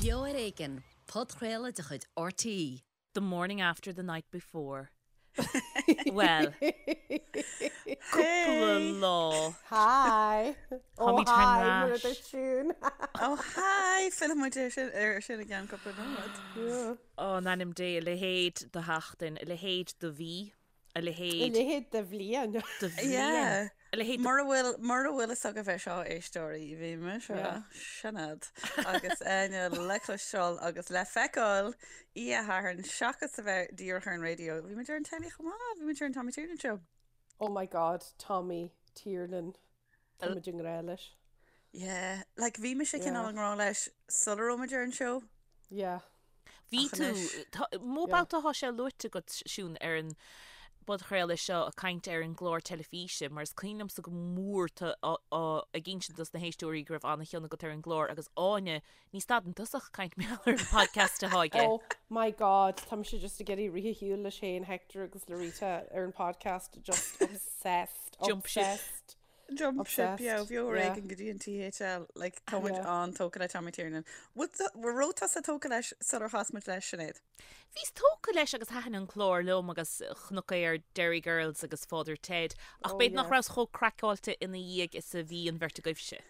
Beo ar Éigean, podchraoladh de chuid RTÉ. The morning after the night before. Bhuel, cúpla lá. Hi! Oh Táimid thar hi, mar a n-ais. dúirt Siún. Oh hi! Fillfidh muid ar sin ar sin i gceann cúpla nóiméad. Yeah. Ó, in ainm Dé, a leithéid de sheachtain, a leithéid de mhí. A A leithéid. leithéid de bhliain. De bhliain. Yeah. A leithéid de. Mura bhfuil, mura bhfuil fhios agaibh é seo, a éisteoirí, bhí mise, Yeah. Sinéad, agus Áine le cloisteáil agus le feiceáil oíche Shathairn, seachas a bheith díreach ar an raidió, bhí muid ar an telly chomh maith, bhí muid ar an Tommy Tiernan Show. Oh my God, Tommy Tiernan. Tá muid i ngrá leis. Yeah, like bhí mise Yeah. cineál i ngrá leis sula raibh muid ar an seó. Yeah. Bhí Ach tú, anois. tá, mó Yeah. babhta atá sé luaite agat, Siún, ar an bpodchraoladh seo ag caint ar an gclár teilifíse, mar is cuimhin liomsa go mór tú á, á, ag insint dos na héisteoirí go raibh an-chion agat ar an gclár agus Áine, ní stadann tusa ach ag caint mar gheall ar an podcast atá aige. Oh my God, tá mise just ag iarraidh rith ar shiúl leis féin, Hector agus Lorita ar an podcast, just obsessed, Jump ship. obsessed. Jump ship, yeah, Obsessed, bheo ar yeah. éigean go dtí an THL, like, tá muid Yeah. an-tógtha le Tommy Tiernan. Raibh tusa tógtha leis sular chas muid leis, Sinéad? Bhíos tógtha leis agus thaitin an clár liom agus chonac é ar Derry Girls agus Father Ted ach Oh, b'fhéidir nach yeah. rabhas chomh craiceáilte ina dhiaidh is a bhí an bheirt agaibhse.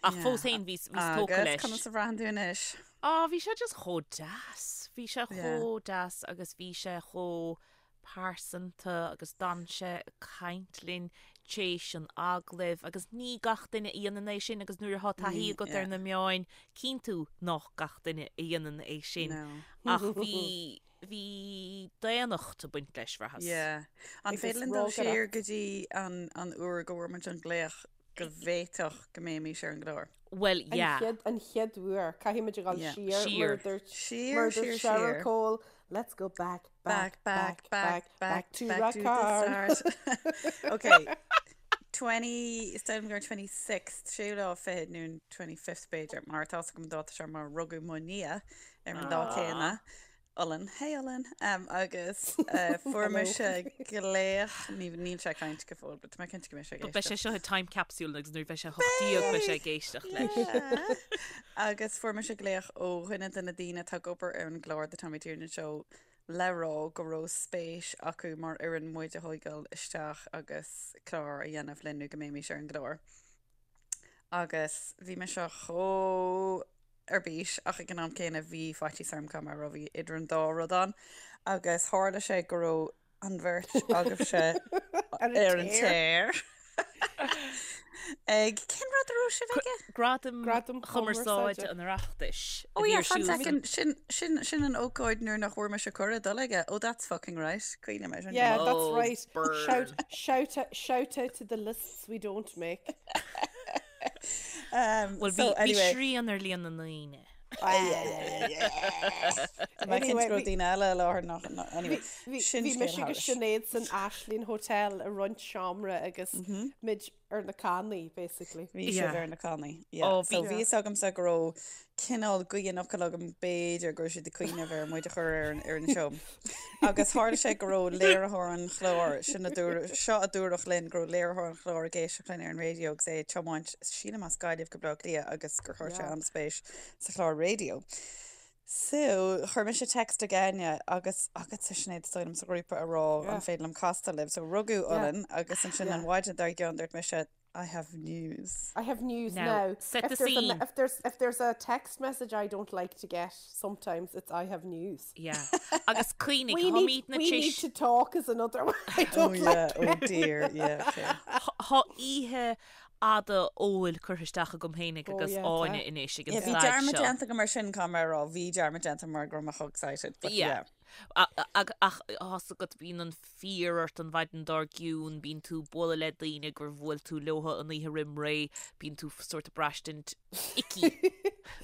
Ach Yeah. fós féin bhíos, bhíos tógtha Agus leis. conas a bhraitheann tú anois? Á, bhí sé just chomh deas. Bhí sé Yeah. chomh deas agus bhí sé chomh pearsanta agus d'fhan sé ag caint linn tréis an agallaimh agus ní gach duine a dhéanann é sin agus nuair atá taithí Ní, agat yeah. ar na meáin, cíonn tú nach gach duine a dhéanann é sin. No. Ach bhí, bhí daonnacht ag baint leis, bhraitheas. Yeah. An Agus féidir linn dul siar rógaireacht. go dtí an, an uair go bhfuair muid an glaoch go bhféadfadh go mbeimis ar an gclár? Bhuel, An yeah. chéad, an chéad uair, caithfidh muid a dhul Yeah. siar, Siar. mar a dúirt, Siar, mar a siar, dúirt Cheryl siar. Cole, let's go back, Back, back, back, back, back, to back to the Rathcairn. start. Okay. 20, is dóigh liom gur 26th, séú lá fichead nó an 25th b'fhéidir, mar tá fhios agam an dáta seo mar rugadh mo nia ar an lá céanna. Olann, hey Olann, agus fuair mise glaoch, níl sé ag caint go fóill, but tá mé cinnte go mbeidh sé ag Beidh sé éisteacht. seo i time capsule agus nuair a bheidh sé 18 beidh sé ag éisteacht leis. Agus fuair mise glaoch ó dhuine de na daoine atá ag obair ar an gclár The Tommy Tiernan Show le rá go raibh spéis acu mar fhoireann muid a thógáil isteach agus clár a dhéanamh linn nó go mbeimis ar an gclár. Agus bhí mise chomh ar bís ach ag an am céanna bhí faitíos orm go raibh bhí idir an dá rud ann agus tharla sé go raibh an bheirt agaibhse ar an tear ag cén rud a raibh sibh aige? Gradaim Gradaim Chumarsáide Chumarsáide. an Oireachtais a Oh bhí yeah, ar fan siúl second, sin, sin, sin an ócáid nuair nach bhfuair mise cuireadh dul aige. Oh, that's fucking right. Cuimhním air sin. Yeah, that's Oh, right. burn. Shout, shout, out- shout out to the lists we don't make. Um, Bhuel, so bhí, bhí anyway, srian ar líon na ndaoine. Tá mé cinnte Anyway, go raibh bhí- daoine eile i láthair nach, nach- anyway, Bhí sin bhí scéal mise agus thairis. Sinéad san Ashling Hotel i roinnt seomra agus muid ar na cannaí, basically. Bhí sibh Yeah. ar na cannaí. Yeah. Oh, So bhí- bhí fhios agamsa go raibh cineál gaoth an fhocail agam b'fhéidir go raibh siad ag cuimhneamh ar muid a chur ar an, ar an seó. Agus tharla sé go raibh léiritheoir an chláir, sin a dúradh, seo a dúradh linn, go raibh léiritheoir an chláir ag éisteacht linn ar an raidió agus é ag tiomáint, sílim as Gaillimh go Baile Átha Cliath agus gur chuir sé Yeah. an-spéis sa chlár raidió. So, chuir mise text ag Áine agus agatsa Sinéad is dóigh liom sa ghrúpa a rá Yeah. an féidir liom castáil libh. So rugadh Yeah. Olann agus ansin Yeah. an mhaidin dár gcionn dúirt mise I have news. I have news Now, now. set if the there's A, scene. if there's if there's a text message I don't like to get, sometimes it's I have news. Yeah. Agus cuimhnigh, We need, táimid na we need tis to talk is another one I Oh don't yeah, like. oh dear, yeah, okay. Tá oíche fhada óil curtha isteach agam féinig Oh, agus yeah, Áine tá. anois ag an Yeah, bhí staid dearmad seo. déanta agam ar sin caithfidh mé a rá, bhí dearmad déanta mar go raibh mé chomh excited, but Yeah. yeah. Ach tá's agat bíonn an fear ort an mhaidin dár gcionn, bíonn tú ag bualadh le daoine gur bhuail tú leo an oíche roim ré, bíonn tú sórt ag braistint icky,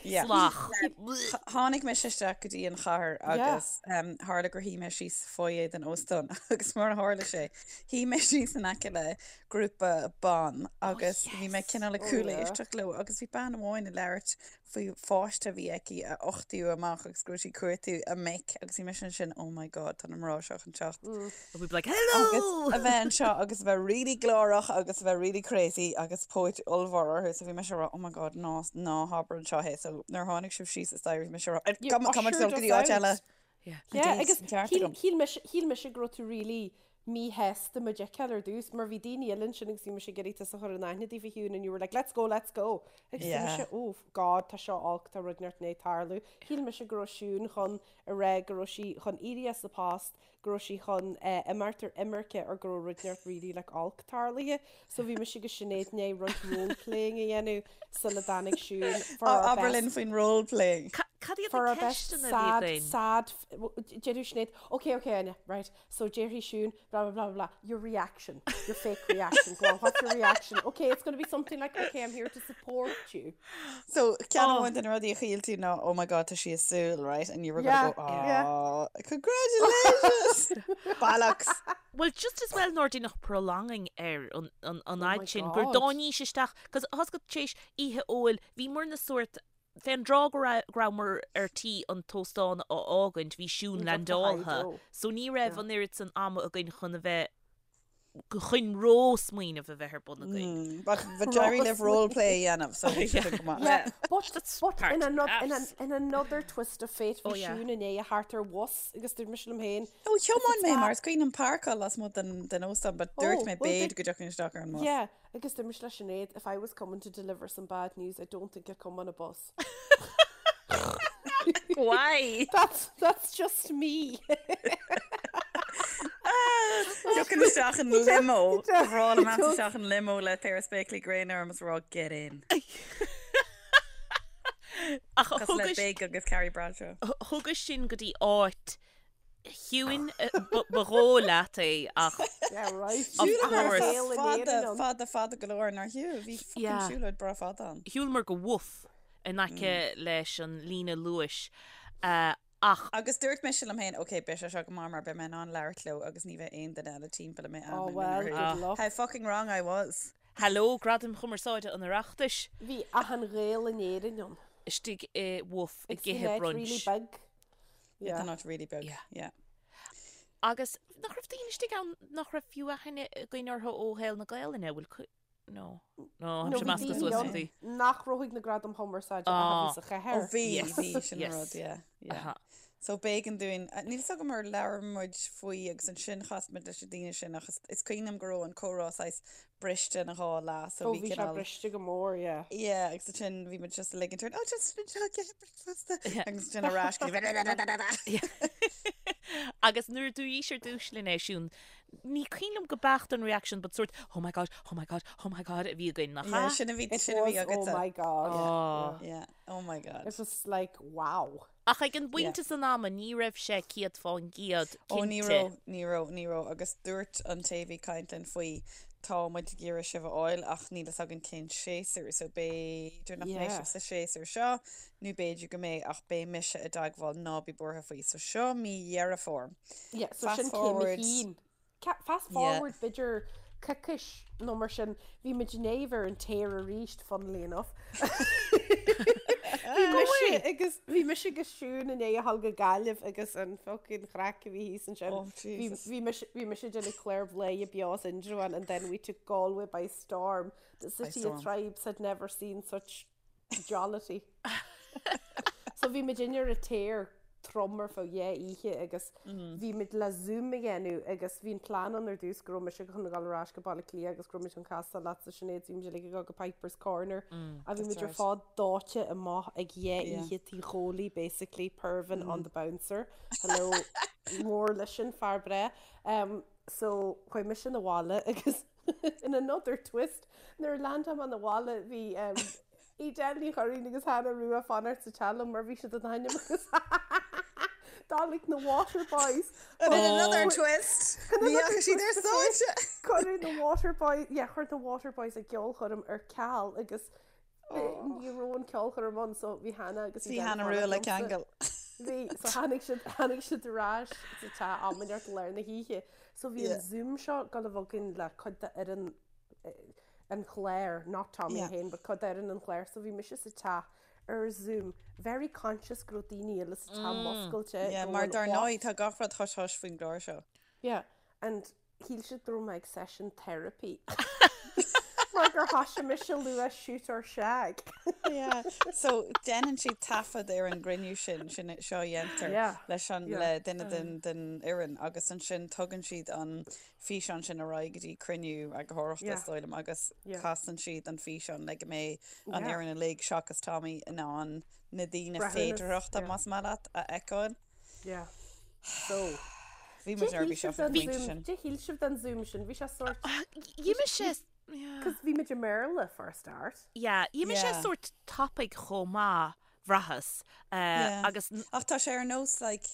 Yeah. salach. Tháinig mise isteach go dtí an chathair Yeah. agus um, tharla gur shuigh mé síos sa foyer den óstán agus mar a tharla sé, shuigh mé síos in aice le grúpa ban agus bhí mé cineál ag Oh, cúléisteacht leo agus bhí bean amháin ag labhairt faoi pháiste a bhí aici a uchtaíodh amach agus go raibh sí ag cuartú a mic agus bhí mise ansin. ansin, oh my god, tá na mná seo chun teacht. And we'd be like, hello! Agus a bheith anseo agus a bheith really glórach agus a bheith really crazy agus póit ollmhór orthu so bhí mise ag rá, oh my god, ná, ná habair anseo é. So nuair a tháinig sibh síos an staighre bhí mise ag rá, You come, come ushered go dtí us áit eile. out. Yeah. Yeah, did, agus an ceart shíl agam. shíl mise shíl mise go raibh tú really míshásta muid a fheiceáil ar dtús mar bhí daoine eile ansin agus bhí mise ag iarraidh tusa a chur in aithne daofa Shiún and you were like let's go, let's go agus bhí Yeah. mise oh God tá seo olc tá rud inteacht i ndiaidh tarlú. Shíl mise go raibh Siún chun a rá go raibh sí chun éirí as a post, go raibh sí chun imeacht ar imirce or go raibh rud inteacht really like olc tarlaithe. So bhí mise agus Sinéad i ndiaidh roinnt role playing a dhéanamh sula dtáinig Siún for our Abair best linn faoin role playing. Cad iad for na our best ceisteanna a bhí sad, againn? sad, déarfaidh Sinéad, okay, okay, Áine, right, so déarfaidh Siún, blah, blah, blah, blah, your reaction, your fake reaction, go on, what's your reaction? Okay, it's going to be something like, okay, I'm here to support you. So ceann Oh. amháin de na rudaí a shíl tú ná oh my god tá sí ag súil, right? And you were Yeah, gonna go, yeah. oh, congratulations! Bollocks! Well, just as well nár deineadh prolonging ar an, an, an Oh my fhad sin, gur God. dtáinís isteach, cos thá 's agat tar éis oíche óil, bhíomar na sórt Fén dtráth go rabhamar ar tí an t-óstán a fhágaint bhí Siún leaindeáltha so ní raibh an oiread san ama againn chun a bheith chun ró-smaoineamh a bheith ar bun againn. But but d'éirigh libh role play a dhéanamh so bhí sibh go maith. Yeah, but, but part in, of another, in, us. an, in another twist of fate bhí Oh, yeah. Siún i ndiaidh a theacht ar bhus agus dúirt mise liom féin Ó thiomáin mé mar is cuimhin liom páirceáil lasmuigh den den óstán but dúirt Oh, mé well, b'fhéidir did- go dtiocfainn isteach ar an mbus. Yeah, Agus dúirt mise le Sinéad, if I was coming to deliver some bad news, I don't think I'd come on a bus. Why? That's, that's just me. Tiocfainn isteach in limo. Rá liom isteach in limo le péire spéaclaí gréine orm is rá get in. Ach Cosúil le thugais Big agus Carrie Bradshaw. thugais sinn go dtí áit Chiúin ba dhóigh leat é ach Yeah, right. Of Shiúlamar course. Saol in fada, Éirinn ann. fada, fada go leor nár shiúil. Bhí fucking Yeah. siúlóid breá fada ann. shiúlamar go Wolf in aice leis an líne luais ach Agus dúirt mise liom féin, ok, beidh sé seo go maith mar beidh mé in ann labhairt leo agus ní bheidh aon duine eile timpeall a mbeidh Oh aithne well, orthu. good luck. How fucking wrong I was. Hello, Gradaim Chumarsáide an Oireachtais Bhí achan Ghael in Éirinn ann. istigh i Wolf ag It's the ithe net really brunch. big. Yeah. Yeah. Not really beag. Yeah. Yeah. Agus nach raibh daoine istigh ann nach raibh fiú aithne againn orthu ó shaol na Gaelainne, bhfuil cu- No. No, No, tá bhí measctha daoine suas ann rudaí. nach raibh ag na Gradaim Chumarsáide ach a Ah. bhí sa chathair. Ó bhí, Yes. bhí sin an Yes. rud, yeah, yeah. Aha. So b'éigean dúinn, níl 's agam ar labhair muid faoi agus ansin chas muid leis na daoine sin ach is, is cuimhin liom go raibh an comhrá saghas briste ina dhá leath so Ó bhí bhí sé cineál briste go mór, yeah. Yeah, agus ansin bhí muid just ag ligint orainn, oh just just get breakfast agus ansin ar ais go dtí Agus nuair a dúraís ar dtús linn é Siún, ní cuimhin liom go beacht an reaction but sort oh my god, oh my god, oh my god a bhí againn nach Yeah, ea? sin a bhí It sin a bhí was, oh agatsa. my god. Oh. Yeah, oh my god. It was like, wow. Ach ag an bpointe san ama ní raibh sé 100% Ó ní cinnte. raibh, ní raibh, ní raibh agus dúirt an té a bhí ag caint linn faoi tá muid ag iarraidh sibh a fháil ach níl fhios againn cén séasúr so b'fhéidir nach mbeidh Yeah. sibh sa séasúr seo nó b'fhéidir go mbeidh ach beidh mise i dteagmháil ná bí buartha faoi. So seo mí Dheireadh Fómhair. Yeah, so Fast sin céim a forward. haon. Fast Yeah. forward b'fhéidir coicís nó mar sin, bhí muid i ndiaidh a bheith ar an tear arís, funnily enough. Bhí mise agus bhí mise agus Siún i ndiaidh a dhul go Gaillimh agus an fucking chraic a bhí thíos ansin. Oh, Bhí Jesus. bhí mise bhí mise ag déanamh clár Bhladhaire Beo as Indreabhán and then we took Galway by storm. The By city of storm. tribes had never seen such jollity. So bhí muid ar an tear trom ar feadh dhá oíche agus bhí muid le Zoom a dhéanamh agus bhí an plean ann ar dtús go raibh mise chun a dhul ar ais go Baile Átha Cliath agus go raibh muid chun castáil leatsa Sinéad, bhí muid uilig ag dul go Piper's Corner a bhí That's muid ar right. fad dóite amach ag dhá Yeah. oíche Tí Chóilí basically, Pervin on the bouncer. Hello, mór leis sin, fear breá. Um, so chuaigh mise 'na bhaile agus in another twist nuair a landáil mé 'na bhaile bhí um, Edel Ní Churraoin agus Hannah Rua ag fanacht sa teach liom mar bhí siad in ainm agus D'fhág na Waterboys. And in another twist, ní fhaca siad ar stáitse. Cuireadh na Waterboys, yeah, chuir na Waterboys a gceolchoirm ar ceal agus ní raibh an ceolchoirm ann so bhí Hannah agus Bhí Edel ag Hannah fanacht Rua le liomsa. ceangal. Bhí, so tháinig siad, tháinig siad ar ais sa teach am inteacht i lár na hoíche. So bhí an Yeah. Zoom seo ag dul a bheith againn le cuid d'fhoireann an chláir, not Tommy Yeah. féin, but cuid d'fhoireann an chláir, so bhí mise sa teach Ar Zoom, very conscious go raibh daoine eile sa teach muscailte Yeah, mar dar ndóigh tá gach rud hush hush faoin gclár seo. Yeah, and shíl siad go raibh mé ag session therapy. Mar gur thoisigh mise a lua shoot or shag. Yeah, so déanann siad taifead ar an gcruinniú sin, sin seo a dhéantar Yeah, leis an, yeah. le duine den, den fhoireann agus ansin tugann siad an físeán sin ar aghaidh go dtí cruinniú eagarthóireachta is dóigh liom agus casann siad an físeán le go mbeidh an fhoireann uilig seachas Tommy in ann na daoine féidearthachta, más maith leat, a fheiceáil. Yeah. So. Bhí muid neirbhíseach ag an bpointe sin. Cad a shíl sibh den Zoom sin, bhí sé sórt. D'imigh sé. Cos bhí muid i mBéarla for a start. Yeah, d'imigh sé sórt tapaidh chomh maith. bhraitheas. Agus. Ach tá sé ar nós like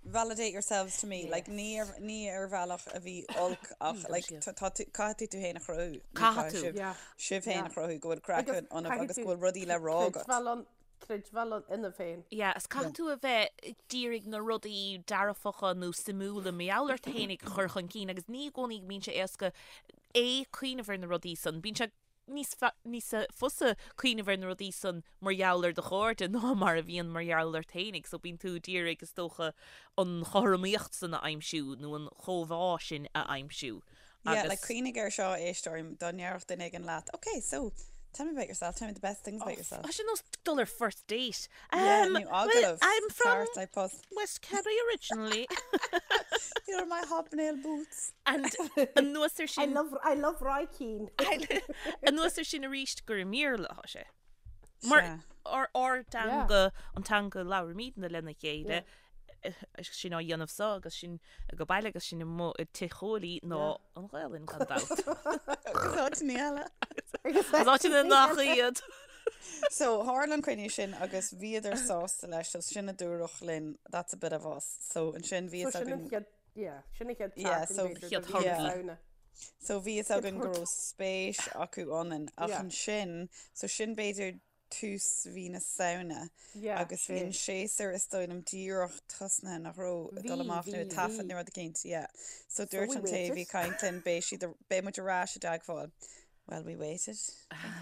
validate yourselves to me, like ní ar ní ar bhealach a bhí olc ach like tá tá tú caithfidh tú tú féin a chruthú. Caithfidh tú. Yeah. Sibh féin a chruthú go bhfuil craic ionaibh agus go bhfuil rudaí le rá agat. Creidbheáil ann creidbheáil ionaibh féin. Yeah, is caithfidh tú a bheith ag iarraidh na rudaí dearfacha nó suimiúla mar gheall ort féinig a chur chun cinn agus ní i gcónaí go mbíonn sé éasca é cuimhneamh ar na rudaí san. Bíonn sé níos níos fusa cuimhneamh ar na rudaí san mar gheall ar do chairde ná mar a bhíonn mar gheall ort fhéinig. So bíonn tú ag iarraidh, is dócha, an chothromaíocht san a aimsiú nó an chóimheá sin a aimsiú. Yeah, like cuimhnigh air seo, éisteoir, dá ndéarfadh duine éigin leat, ok, so, tell me about yourself, tell me the best things about yourself. Tá sé nós dul ar first date. Yeah, nó well, agallamh. I'm from Ceart, like post. West Kerry originally. Here are my hobnail boots. And anuas ar I sin, love, I love Roy Keane. anuas ar sin arís gur i mBéarla atá sé. Mar Sea. ár ár dteanga, an teanga a labhraímidne lena chéile, sinn á dhéanamh seo agus sinn ag baile agus sinn amuigh i tigh Chóilí ná an Ghaelainn gan dabht. Agus áiteanna eile. Agus áiteanna nach iad. So, tharla an cruinniú sin agus bhíodar sásta leis, so sin a dúradh linn, that's a bit of us. So ansin bhí So fhios sin an againn, chéad, yeah, sin an chéad Yeah, tseachtain so b'fhéidir chéad de mhí na thorthaí. Samhna. so bhí fhios againn go raibh spéis acu ionainn ach Yeah. ansin, so sin b'fhéidir tús mhí na Samhna Yeah, agus bhí an séasúr is dóigh liom díreach tosnaithe nach raibh ag dul Bhí, amach nó bhí, ag taifead bhí. nó rud eicínt, yeah. So So dúirt we an té a bhí waited. ag caint linn beidh siad, beidh muid ar ais i dteagmháil. Well, we waited.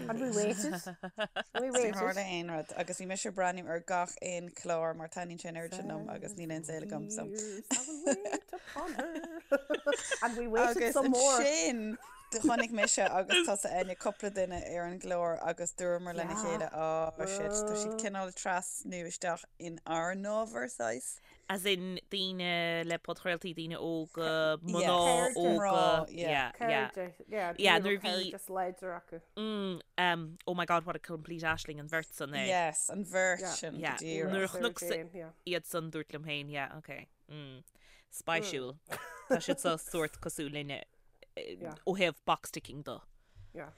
And we waited. And we Níor waited. tharla aon rud agus bhí mise ag breathnú ar gach aon chlár mar taitníonn sé an oiread sin liom agus níl aon saol agam so. Years I will wait upon her. And we waited Agus some more. ansin do chonaic mise agus tusa Áine cúpla duine ar an gclár agus dúramar lena chéile oh shit tá siad cineál trasnú isteach in ár n-ábhar saghas. As in daoine le podchraoltaí, daoine óga, mná Yeah. óga. Mná, yeah. Yeah, yeah. Cairde, yeah, Yeah, daoine nuair raibh bhí- cairdeas láidir acu. Mm, um, oh my god, what a complete aisling an bheirt san é. Yes, an bheirt Yeah. sin go Yeah. díreach. Nuair a Sarah chonac Jane, yeah. iad san dúirt liom féin, yeah, okay. Mm. Spéisiúil. Tá siad so sórt cosúil linne eh, Yeah. ó thaobh box ticking de. Yeah.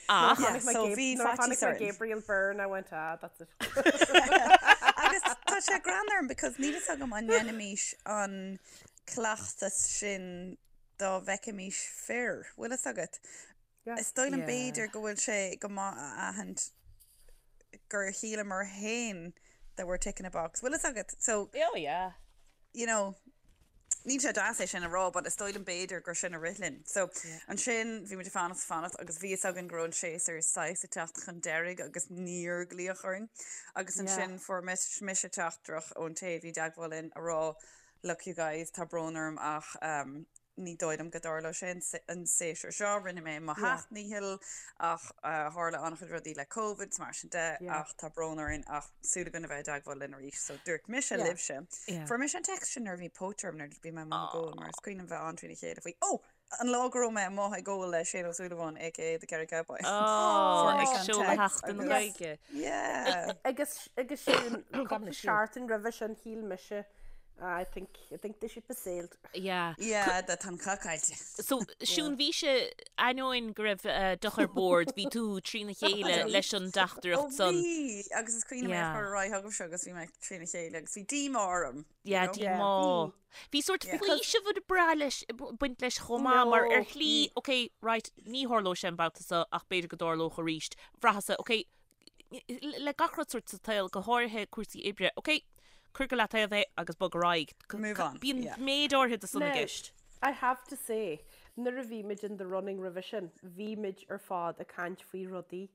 Ach, Yeah, Chonaic mé so Gab- bhí nuair a faitíos chonaic mé orainn. Gabriel Byrne, I went, ah, that's it. Agus tá sé greannmhar orm because níl fhios agam an ndéanfaimis an cleachtas sin dá bhfeicfimis fir, bhfuil fhios agat? Yeah. Is dóigh liom Yeah. b'fhéidir go bhfuil sé go maith a aithint gur shíleamar féin that we're ticking a box. Bhfuil fhios agat? So, Oh yeah. you know, níl sé deas é sin a rá, but is dóigh liom b'fhéidir gur sin a rith linn. So, ansin bhí muid ag fanacht fanacht agus bhí fhios againn go raibh an séasúr saghas ag teacht chun deiridh agus níor glaodh orainn. Agus ansin fuair mise teachtaireacht ón té a bhí i dteagmháil linn a rá, look you guys, tá brón orm ach um, ní dóigh liom go dtarlóidh sé an séasúr seo, rinne mé mo sheacht ndícheall ach tharla an-chuid rudaí le Covid is mar sin de ach tá brón orainn ach súil againn a bheith i dteagmháil linn arís. So dúirt mise libhse, fuair mise an text sin nuair a bhí póit orm nuair a bhí mé amuigh ag ól mar is cuimhin liom bheith an-trína chéile faoi, oh! An lá go raibh mé amuigh ag ól le Shane Ó Súilleabháin aka The Kerry Cowboy. Oh, Fuair ag mise an seoladh text Sheachtain na agus Gaeilge. yeah. Agus agus sin cúpla seachtain roimhe sin shíl mise I think, I think the ship has sailed. Yeah. Yeah, tá an cath caillte. So, Siún, bhí sé, ainneoin go raibh deoch ar bord, bhí tú trína chéile leis an dteachtaireacht Ó san. bhí, agus is cuimhin liom é a Yeah. chur ar aghaidh chugaibhse agus bhí mé trína chéile agus bhí díomá orm. you Yeah, know? Yeah, díomá. bhí. Bhí sórt Yeah. faoiseamh ag brath leis, baint leis chomh maith, mar ar No, shlí, ok, right, ní tharlóidh sé an babhta seo ach b'fhéidir go dtarlódh arís. Bhraitheas-sa, ok, le gach rud sórt sa tsaol, go háirithe cúrsaí oibre, ok, cuir go leataobh é agus bog ar aghaidh. Move on, Bíonn yeah. méid áirithe de san i Now, gceist. I have to say, nuair a bhí muid in the running roimhe sin, bhí muid ar fad ag caint faoi rudaí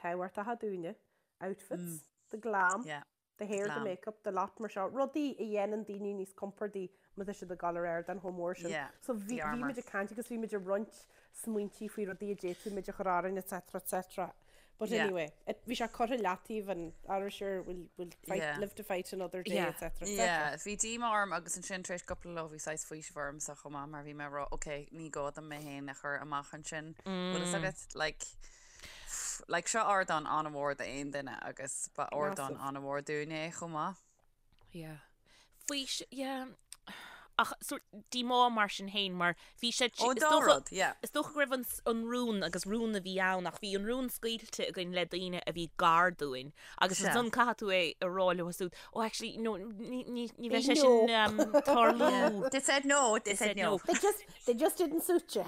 tábhachtacha dúinne. Outfits, the glam, Yeah. the hair, the Glam. makeup, the lot mar seo, rudaí a dhéanann daoine níos compordaí má tá siad ag dul ar ardán chomh mór sin. Yeah, So bhí the bhí armour. muid ag caint agus bhí muid ag roinnt smaointí faoi rudaí a d'fhéadfadh muid a chur orainn etc etc. But Yeah. anyway, it, bhí sé curtha leataobh and ara sure we'll, we'll fight, Yeah. live to fight another day Yeah. etc etc. Yeah, bhí díomá orm agus ansin tar éis cúpla lá bhí saghas faoiseamh ormsa chomh maith mar bhí mé ag rá ok, ní gá dom mé féin a chur amach ansin. Bhfuil fhios agat, like, Like seo ardán an-mhór d'aon duine agus ba ardán Massive. an-mhór dúinne é chomh maith. Yeah. Faoi, yeah. Ach sort díomá mar sin féin mar bhí sé Ó, is dá dócha- rud, yeah. Is dócha go raibh an, s- an rún agus rún a bhí ann ach bhí an rún scaoilte againn le daoine a bhí gar dúinn agus Sea. ansan caithfidh tú é a rá leo siúd oh actually no ní, ní, ní bheidh sé No. sin um, tarlú. They said no, they said no. They just, they just didn't suit you.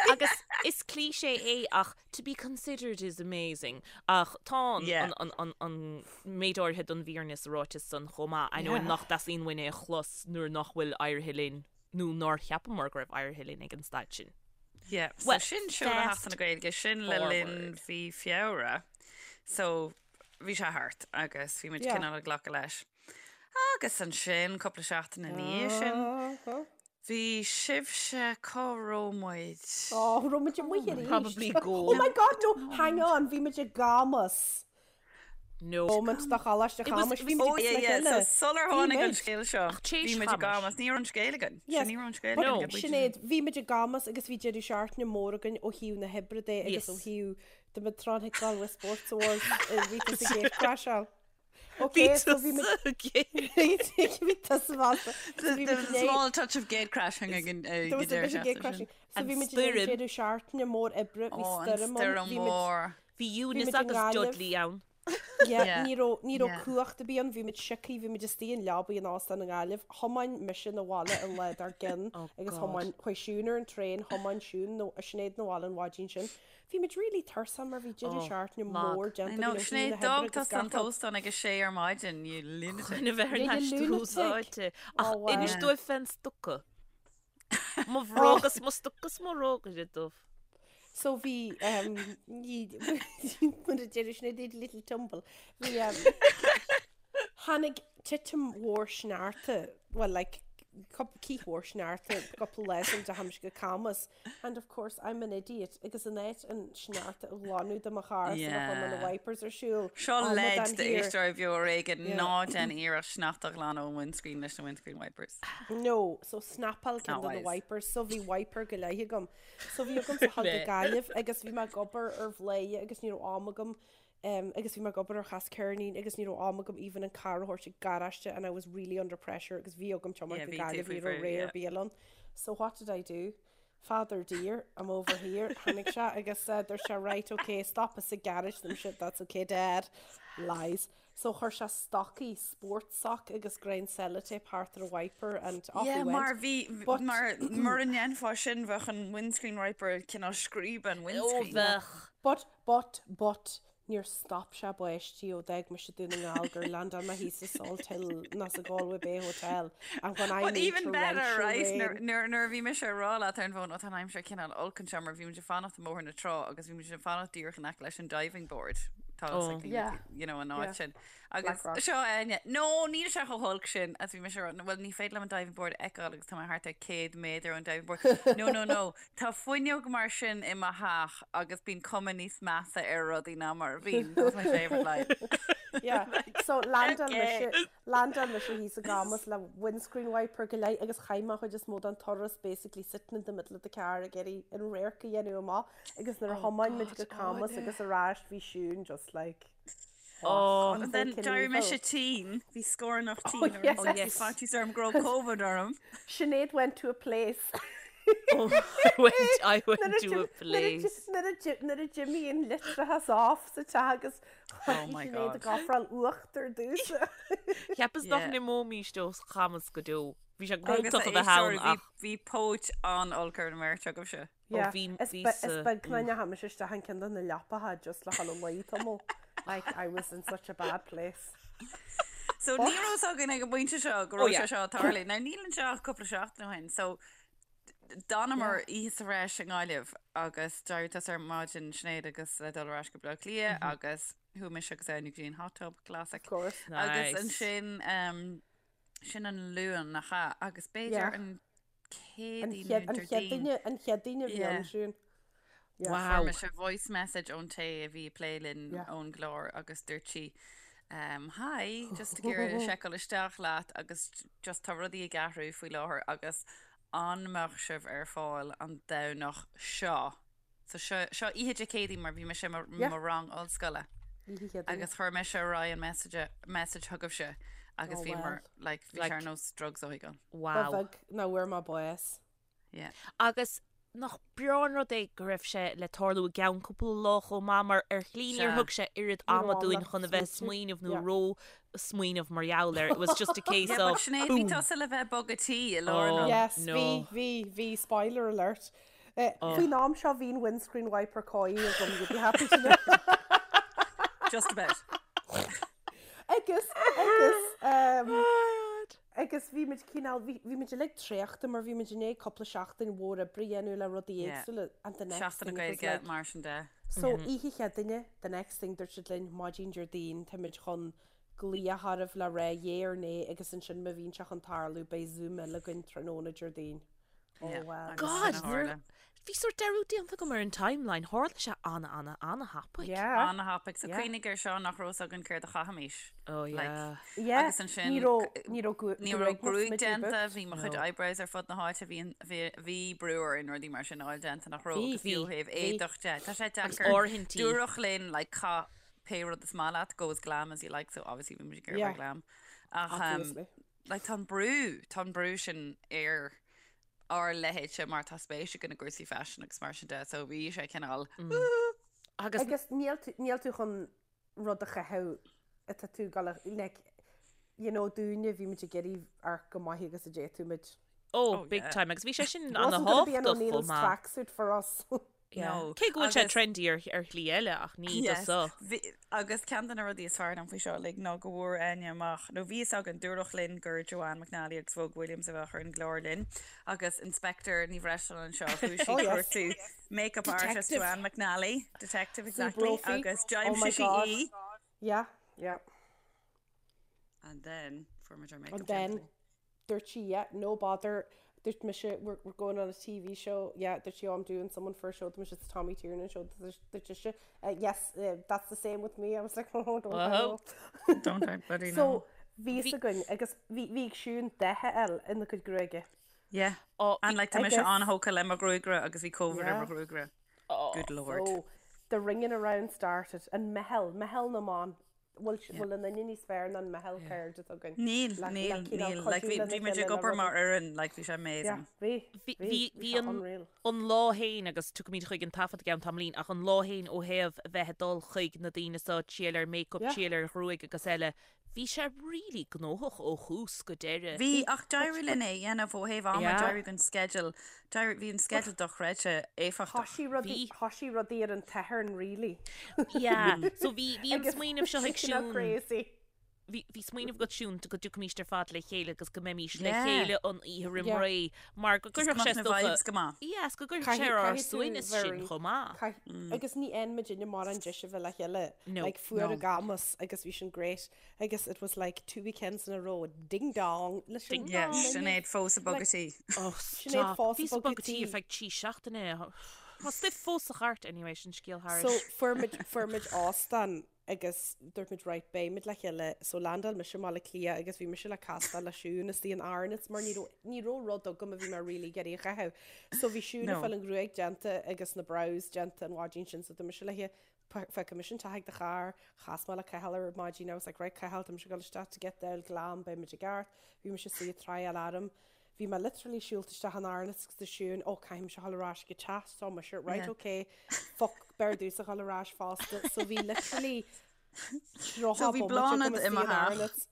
Agus is cliché é ach to be considered is amazing ach tá an, Yeah. an, an, an, an méid áirithe den bhfírinne sa ráiteas san chomh maith. I know Yeah. nach dteastaíonn uainn é a chlos nuair nach bhfuil éirithe linn nó nár cheapamar go raibh éirithe linn ag an staid sin. Yeah, so Well, sin seoladh fast Sheachtain na Gaeilge, sin le linn forward. mhí Feabhra. So bhí sé thart agus bhí muid Yeah. cineál ag glacadh leis. Agus ansin, cúpla seachtain ina dhiaidh sin, Uh-huh. bhí sibhse, cá raibh muid? Oh, raibh muid amuigh arís. Probably go. Oh my God, no, hang on, bhí muid i gCamas. No. Moment do Choláiste It was- Chamais, it bhí was- muid Oh le yeah, yeah, so chéile. sular Bhí tháinig an muid. scéal seo, Ach tar éis bhí muid i Chamais. gCamas, ní raibh an scéal againn. Yes, Sin ní raibh an scéal but againn. ag an bpointe sin. Sinéad, bhí muid i gCamas agus bhí deireadh seachtaine mór againn ó thaobh na hoibre de agus Yes. ó thaobh the muid trying to Galway Sports Awards bhí tusa ag gatecrasháil. Bhí Okay, so bhí muid tusa gate. bhí tusa fosta. So There bhí there muid was a in small touch of gate crashing ag an There was a bit of gate crashing. So And bhí muid in stoirm. deireadh seachtaine mór oibre, bhí Oh, an stoirm ann, stoirm bhí muid mhór. Bhí Bhí Eunice muid i agus nGaillimh. Dudley ann. Yeah, Yeah. ní raibh ní raibh Yeah. cumhacht ar bith ann, bhí muid sioctha, bhí muid istigh in leabaidh in óstán i nGaillimh. Thiomáin mise na bhaile an lá dár gcionn Oh agus God. thiomáin chuaigh Siún ar an traein, thiomáin Siún nó Sinéad na bhaile an mhaidin sin. Bhí muid really tuirseach mar bhí deireadh Oh, seachtaine lag. mór I déanta know, againn ó thaobh Sinéad, na hoibre d'fhág agus tusa an gach rud. t-óstán ag a sé ar maidin, you lunatic. Chun a bheith ar Yeah, you n-ais lunatic. úsáidte. Ach Oh, wow. inis dóibh fén stoca. Mo bhróg is mo stoca is mo bhróg is dubh. So bhí um, ní mar a deir Sinéad did a little tumble. Bhí um, tháinig titim mhór sneachta, well like cith mhór sneachta cúpla lá sula ndeachaigh mise go Camas and of course I'm an idiot agus in áit an sneachta a ghlanadh de mo charr sular chuir mé na Yeah. wipers ar siúl. Seo amadán leid thiar. d'éisteoirí Beo Ar Éigean Yeah. ná déan iarracht sneachta a ghlanadh ón windscreen leis na windscreen wipers. No, so snapáil ceann Not de na wise. wipers, so bhí wiper go leith agam. So bhí agam a ghabháil go Gaillimh agus bhí mé ag obair ar Bhladhaire agus ní raibh am agam um, agus bhí mé ag obair ar Chas Ceirnín agus ní raibh am agam even an car a thabhairt ag garáiste and I was really under pressure agus bhí agam Yeah, tiomáint go bhí tú Gaillimh faoi ní raibh bhrú, ré ar yeah. bith ann. So what did I do? Father dear, I'm over here. Tháinig sé agus uh, dúirt sé right, okay, stop us ag garage them shit, that's okay, dad. Lies. So chuir sé stocaí sport sock agus greim sellotape thart ar a wiper and off Yeah, we went. mar bhí But- mar mura ndéanfá sin bheadh an windscreen wiper cineál scríob an Ó windscreen. bheadh. But, but, but, níor stop sé báistí ó d'fhág mise Dún na nGall gur landáil mé thíos i Salthill ná sa Galway Bay Hotel and when I But mean even better, torrential right? rain. Nuair nuair- nuair a bhí mise ag rá leat ar an bhfón, ó tá an aimsir cineál olc anseo mar bhí muid ag fanacht i mBóthar na Trá agus bhí muid ag fanacht díreach in aice leis an diving board. Tá Oh. like, Yeah. you know, an áit Yeah. sin. Agus Blackrock. seo Áine, no, níl sé chomh holc sin as bhí mise ag rá, well ní féidir liom an diving board a fheiceáil agus tá mé thart ar 100 méadar ón diving board. No, no, no, tá fuinneog mar sin i mo theach agus bíonn cuma níos measa ar rudaí ná mar a bhíonn. That's my favourite line. Yeah. So landáil Okay. mise landáil mise thíos i gCamas le windscreen wiper go leith agus chaith mé chuid is mó den turas basically sitting in the middle of the car ag iarraidh an radharc a dhéanamh amach agus nuair a Oh thiomáin muid God, go Camas Áine. agus ar ais bhí Siún just like Oh, And then freaking d'éirigh mise evil. tinn, bhí scornach Oh, tinn orm, yes. Oh, bhí yes. faitíos orm go raibh COVID orm. Sinéad went to a place. Oh, I went, I went Nuair a to d'im- a place. Nuair a d'im- nuair a d'imigh an leictreachas off sa teach agus Oh my Sinéad God. ag ofráil uachtar domhsa. Cheapas nach Yeah. n-imeoimís ó Chamas go deo. Bhí sé Agus gnóthach a bheith ann éisteoirí, bhí ach bhí póit an-olc ar an mbeirt agaibhse. Yeah, bhí- is bhí be- sa- is beag nach ndeachaigh mise isteach in ceann de na leapacha just le dhul a luí tamall. Like, I was in such a bad place. So ní raibh fhios againn ag an bpointe seo go Oh, raibh yeah. sé seo ag tarlú. Now níl anseo ach cúpla seachtain ó shin, so d'fhanamar oíche sa bhreis i nGaillimh agus d'éirigh tusa ar maidin Sinéad agus le dul ar ais go Baile Átha Cliath agus. Chuaigh mise agus Áine go dtí an hot tub, classic. Of course. Agus Nice. ansin um, sin an Luan nach ea agus b'fhéidir Yeah. an An Céadaoin chéad nó an chéad Déardaoin. duine an chéad duine a bhí Yeah. ann Siún. Yeah. Wow. Fuair mise voice message ón té a bhí ag plé linn Yeah. ón gclár agus dúirt sí um, Hi, just ag iarraidh seiceáil isteach leat agus just tá rudaí ag athrú faoi láthair agus an mbeadh sibh ar fáil an Domhnach seo? So seo, seo oíche Dé Céadaoin mar bhí mise i mo, Yeah. mo rang ollscoile Oíche Chéadaoin. agus chuir mise ar aghaidh an message, message chugaibhse agus Oh, bhí well. mar, like, bhí sé Like- ar nós drugs a thógáil. Ba Wow. bheag nach bhfuair mé bás. Yeah. Agus nach breá an rud é go raibh sé le tarlú i gceann cúpla lá chomh maith mar ar shlí níor Sea. thug sé oiread Ní raibh ama am dúinn le chun a bheith ag smaointiú. smaoineamh nó Yeah. ró smaoineamh mar gheall air. It was just a case Yeah, but of Sinéad, bhí boom. tusa le bheith ag bogadh tí i lár an Oh. rud. Yes, no. bhí, bhí, bhí, spoiler alert. Eh, Faoin am seo bhí an windscreen wiper cóirithe agam, you'd be happy to know. Just about. Agus, agus, um, agus bhí muid cineál, bhí bhí muid uilig traochta mar bhí muid i ndiaidh cúpla seachtain mhór oibre a dhéanamh le rudaí Yeah. éagsúla and the next Seachtain na thing it was Gaeilge like, mar sin de. So oíche Chéadaoine, the next thing dúirt siad linn maidin Déardaoin táimid chun glaoch oraibh le rá yay or nay agus ansin má bhíonn sé chun tarlú beidh Zoom eile againn tráthnóna Déardaoin. Oh Yeah, well. agus God, sin a nuair- tharla. bhí sórt dearúd déanta agam ar an timeline, tharla sé ana ana ana thapaidh. Yeah. Ana-thapaidh. So Yeah. cuimhnigh ar seo nach raibh fhios againn céard a chaithfimis. Oh Like, yeah. Yeah. Agus ansin Ní raibh ní raibh gu- ní raibh gruaig gruaig muid déanta, booked. bhí mo chuid No. eyebrows ar fud na háite, bhí an- bhí bhí brú orainn rudaí mar sin a fháil déanta nach raibh Bhí, agus fiú bhí, thaobh bhí. éadach de. Tá sé Agus deacair. áirithintí. Dúradh linn like caith pé rud is maith leat, go as glam as you like, so obviously bhí muid ag iarraidh Yeah. bheith glam. Ach um, Obviously. like tá an brú, tá an brú sin ar ár leithéidse mar tá spéis againn i gcúrsaí faisin agus mar sin de, so bhí sé cineál Agus Agus níl tú níl tú chun rud a chaitheamh atá tú ag gabháil a like you know dúinne bhí muid ag iarraidh amharc chomh maith agus a d'fhéadfadh muid. oh, Oh, big yeah. time agus bhí sé sin It wasn't gonna be an ana-thábhachtach chomh O'Neill's maith. tracksuit for us. Yeah. No. Cé go bhfuil sé Agus- trendy ar ar shlí eile ach ní do Yes. so. Bhí- Agus ceann de na rudaí is fearr liom faoi seo uilig ná go bhfuair Áine amach, nó bhí fhios againn, dúradh linn gur Joanne McNally agus Vogue Williams a bheadh ar an gclár linn agus Inspector Ní Bhreisleáin anseo, chuaigh sí Oh, yes. cuartú makeup artist Detective. Joanne McNally, detective Sue exactly, Brophy. agus Oh my d'aimsigh sí God. í. Yeah, yeah. And then fuair muid our makeup And then déanta. dúirt sí, yeah, no bother. Dúirt mise, we're, we're going on a TV show. Yeah, dúirt sí, oh, I'm doing someone for a show. Dúirt mise, it's Tommy Tiernan show. Dúirt dúirt sise, uh, yes, uh, that's the same with me. I was like, oh, don't I Whoa. know. Don't I bloody know. So, bhí fhios againn agus bhí bhí Siún dath a fháil ina cuid gruaige. Yeah. Oh, And like tá mise Agus- an-thógtha le mo ghruagaire agus bhí COVID ar Yeah. mo ghruagaire. oh, Good lord. So, the ringing around started and meitheal, meitheal na mban. Bhfuil bhfuil aon duine níos fearr ná an meitheal cairde atá againn. Níl, Le- le níl, cineál níl. Like, cuidiú bhí lena bhí muid chéile ag le obair mar rudaí. fhoireann, like, bhí sé Yeah, amazing. bhí, Bhí bhí, bhí bhí bhí sé an unreal. an lá féin agus tiocfaimid chuig an taifead i gceann tamaillín ach an lá féin ó thaobh a bheith ag dul chuig na daoine seo triail ar makeup, Yeah. triail ar ghruaig agus eile, bhí sé really gnóthach ó thús go deireadh. Bhí ach d'éirigh linn é a dhéanamh ó thaobh ama, Yeah. d'éirigh an sceideal, d'éirigh, bhí an sceideal dochreidte éifeachtach. Thoisigh rudaí, Bhí. thoisigh rudaí ar an tSatharn really. Yeah, so bhí bhí an Agus smaoineamh seo ag sin Siún. crazy. Bhí bhí smaoineamh agat Siún go dtiocfaimis ar fad le chéile agus go mbeimis le Yeah. chéile an oíche roimh Yeah. ré mar go Just gcuirfeadh go sé mbeadh na dócha vibes go maith. Yes, go gcuirfeadh Caithfidh sé ar ár caithfidh tú suaimhneas sin very chomh maith. caith agus ní fhaigheann muidinne mórán deis a bheith le chéile. No. Like fuair No. a gamas agus bhí sin great agus it was like two weekends in a row ding dong leis an Ding Yeah, dong. Sinéad fós ag bogadh tí. Oh, Sinéad stop. fós Bhí ag sa bogadh bogadh tí tí. ar feadh trí seachtaine. Tá stuif fós sa chairt anyway sin scéal So thairis. fuair muid fuair muid óstán agus dúirt muid right beidh muid le chéile so landáil mise i mBaile Átha Cliath agus bhí mise le castáil le Siún istigh in Arnotts mar ní raibh ní raibh rud agam a bhí mé really ag iarraidh a chaitheamh. So bhí Siún ag No. fáil an ghruaig déanta agus na brows déanta an mhaidin sin so dúirt mise léi feicfidh mise an teach ag do charr, chas mé le Cathal ar maidin I was like right Cathal tá mise ag dul isteach to get the glam beidh muid i gceart. Bhí mise istigh ag tryáil orm. Bhí mé literally siúlta isteach in Arnotts agus dúirt Siún oh caithfidh mise a dhul ar ais go teach so mise right Yeah. okay fuck b'fhearr domhsa dhul ar ais fosta so bhí literally So 30 bhí bomaite agam Bláthnaid i istigh mo in theach Arnotts.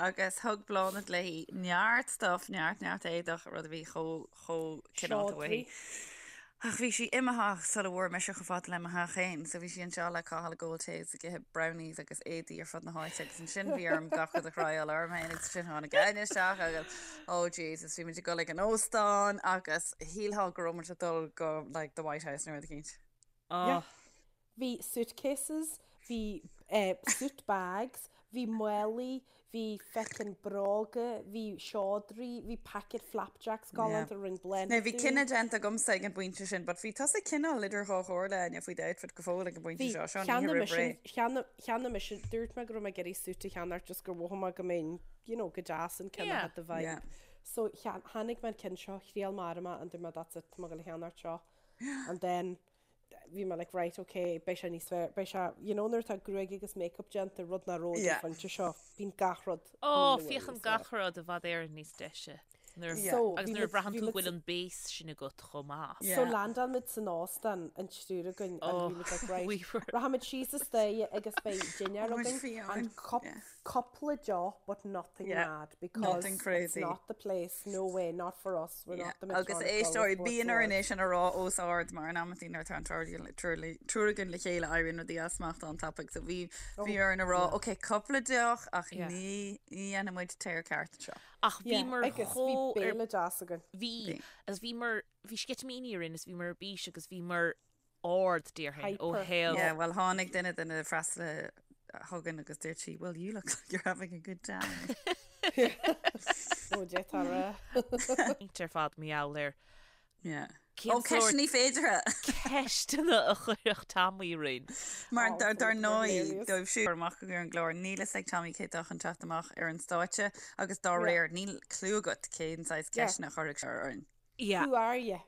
agus thug Bláthnaid léi neart stuff, neart neart éadach, rud a bhí chomh chomh cineálta uaithi. Seodra. Ach bhí sí imithe sula bhfuair mise chomh fada le mo theach féin, so bhí sí anseo le Cathal ag ól tae is ag ithe brownies agus éadaí ar fud na háite agus ansin bhí orm gach rud a thryáil orm féin agus ansin tháinig Áine isteach agus oh Jesus bhí muid ag dul ag an óstán agus shílfeá go raibh muid ag dul go like the White House nó rud eicínt. Oh, Bhí suitcases, bhí eh, suit bags, bhí málaí, bhí feckin bróga, bhí seodraí, bhí packet flapjacks galánta a rinne Bláthnaid Now bhí dúinn. cinneadh déanta agamsa ag an bpointe sin, but bhí tusa cineál idir dhá chomhairle, Áine, faoi d'outfit go fóill ag an bpointe Bhí, seo, seo an oíche cheannaigh roimh mise, ré. cheannaigh, cheannaigh mise, dúirt mé go raibh mé ag iarraidh suit a cheannacht just gur mhothaigh mé go mbeinn, you know, go deas an ceann a Yeah. had the vibe. Yeah. So chean- tháinig mé an ceann seo, thriail mé orm é and dúirt mé that's it, tá mé ag gabháil a cheannacht seo. And then bhí mé like right ok beidh sé níos fearr beidh sé you know nuair atá gruaig agus makeup déanta rud nach raibh ag an Yeah. phointe seo bíonn gach rud Ó, níl féachann níos fearr. gach rud i bhfad Éireann níos deise. Nuair, Yeah. So, agus bhí nuair a muid- bhraitheann bhí tú go muid- bhfuil an base sin agat chomh maith. Yeah. So landáil muid san óstán an triúr againn and Oh, bhí muid like right we were- rachaimid síos an staighre agus beidh dinnéar Muid againn fiáin, and cup, yeah. cúpla deoch but nothing Yeah. mad because Nothing it's crazy. not the place no way not for us we're not the Agus Medtronic éisteoirí Galway bíonn Sports orainn Awards. é sin a rá os ard mar in amantaí nuair atá an triúr againn le chéile éiríonn rudaí as smacht an-tapaidh so bhí bhí orainn a rá ok cúpla deoch ach Yeah. ní ní dhéanfaidh muid tear ceart anseo. Ach Yeah, bhíomar agus bhí chomh ar béile deas againn. bhí agus bhíomar bhí sceitimíní orainn is bhíomar ar bís agus bhíomar ard déarfainn ó Hyper. thaobh Yeah, well tháinig duine de na freastalaithe chugainn agus dúirt sí, well you look like you're having a good time. Ó d'fhéadfá a rá. ar fad mar gheall ar Yeah. cén Ó sórt ceisteanna féideartha! ceisteanna a chuirfeadh Tommy orainn. Mar Oh, dar fucking ndóigh hilarious. dóibh siúd amach ar an gclár níl fhios ag Tommy cé atá chun teacht amach ar an stáitse agus dá Yeah. réir níl clue agat cén saghas Yeah. ceisteanna a chuirfeadh sé orainn. Yeah. Who are you?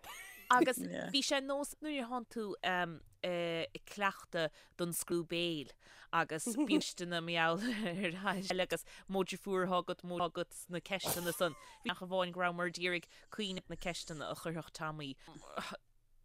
Agus Yeah. bhí sé nós nuair a thánn tú ag cleachtadh don scrúdú béil agus bíonn ceisteanna mar gheall ar eile agus mó deirfiúr atá agat mó agat sna ceisteanna san. Bhí ach amháin go rabhamar d'iarraidh cuimhneamh na ceisteanna a chuirfeadh Tommy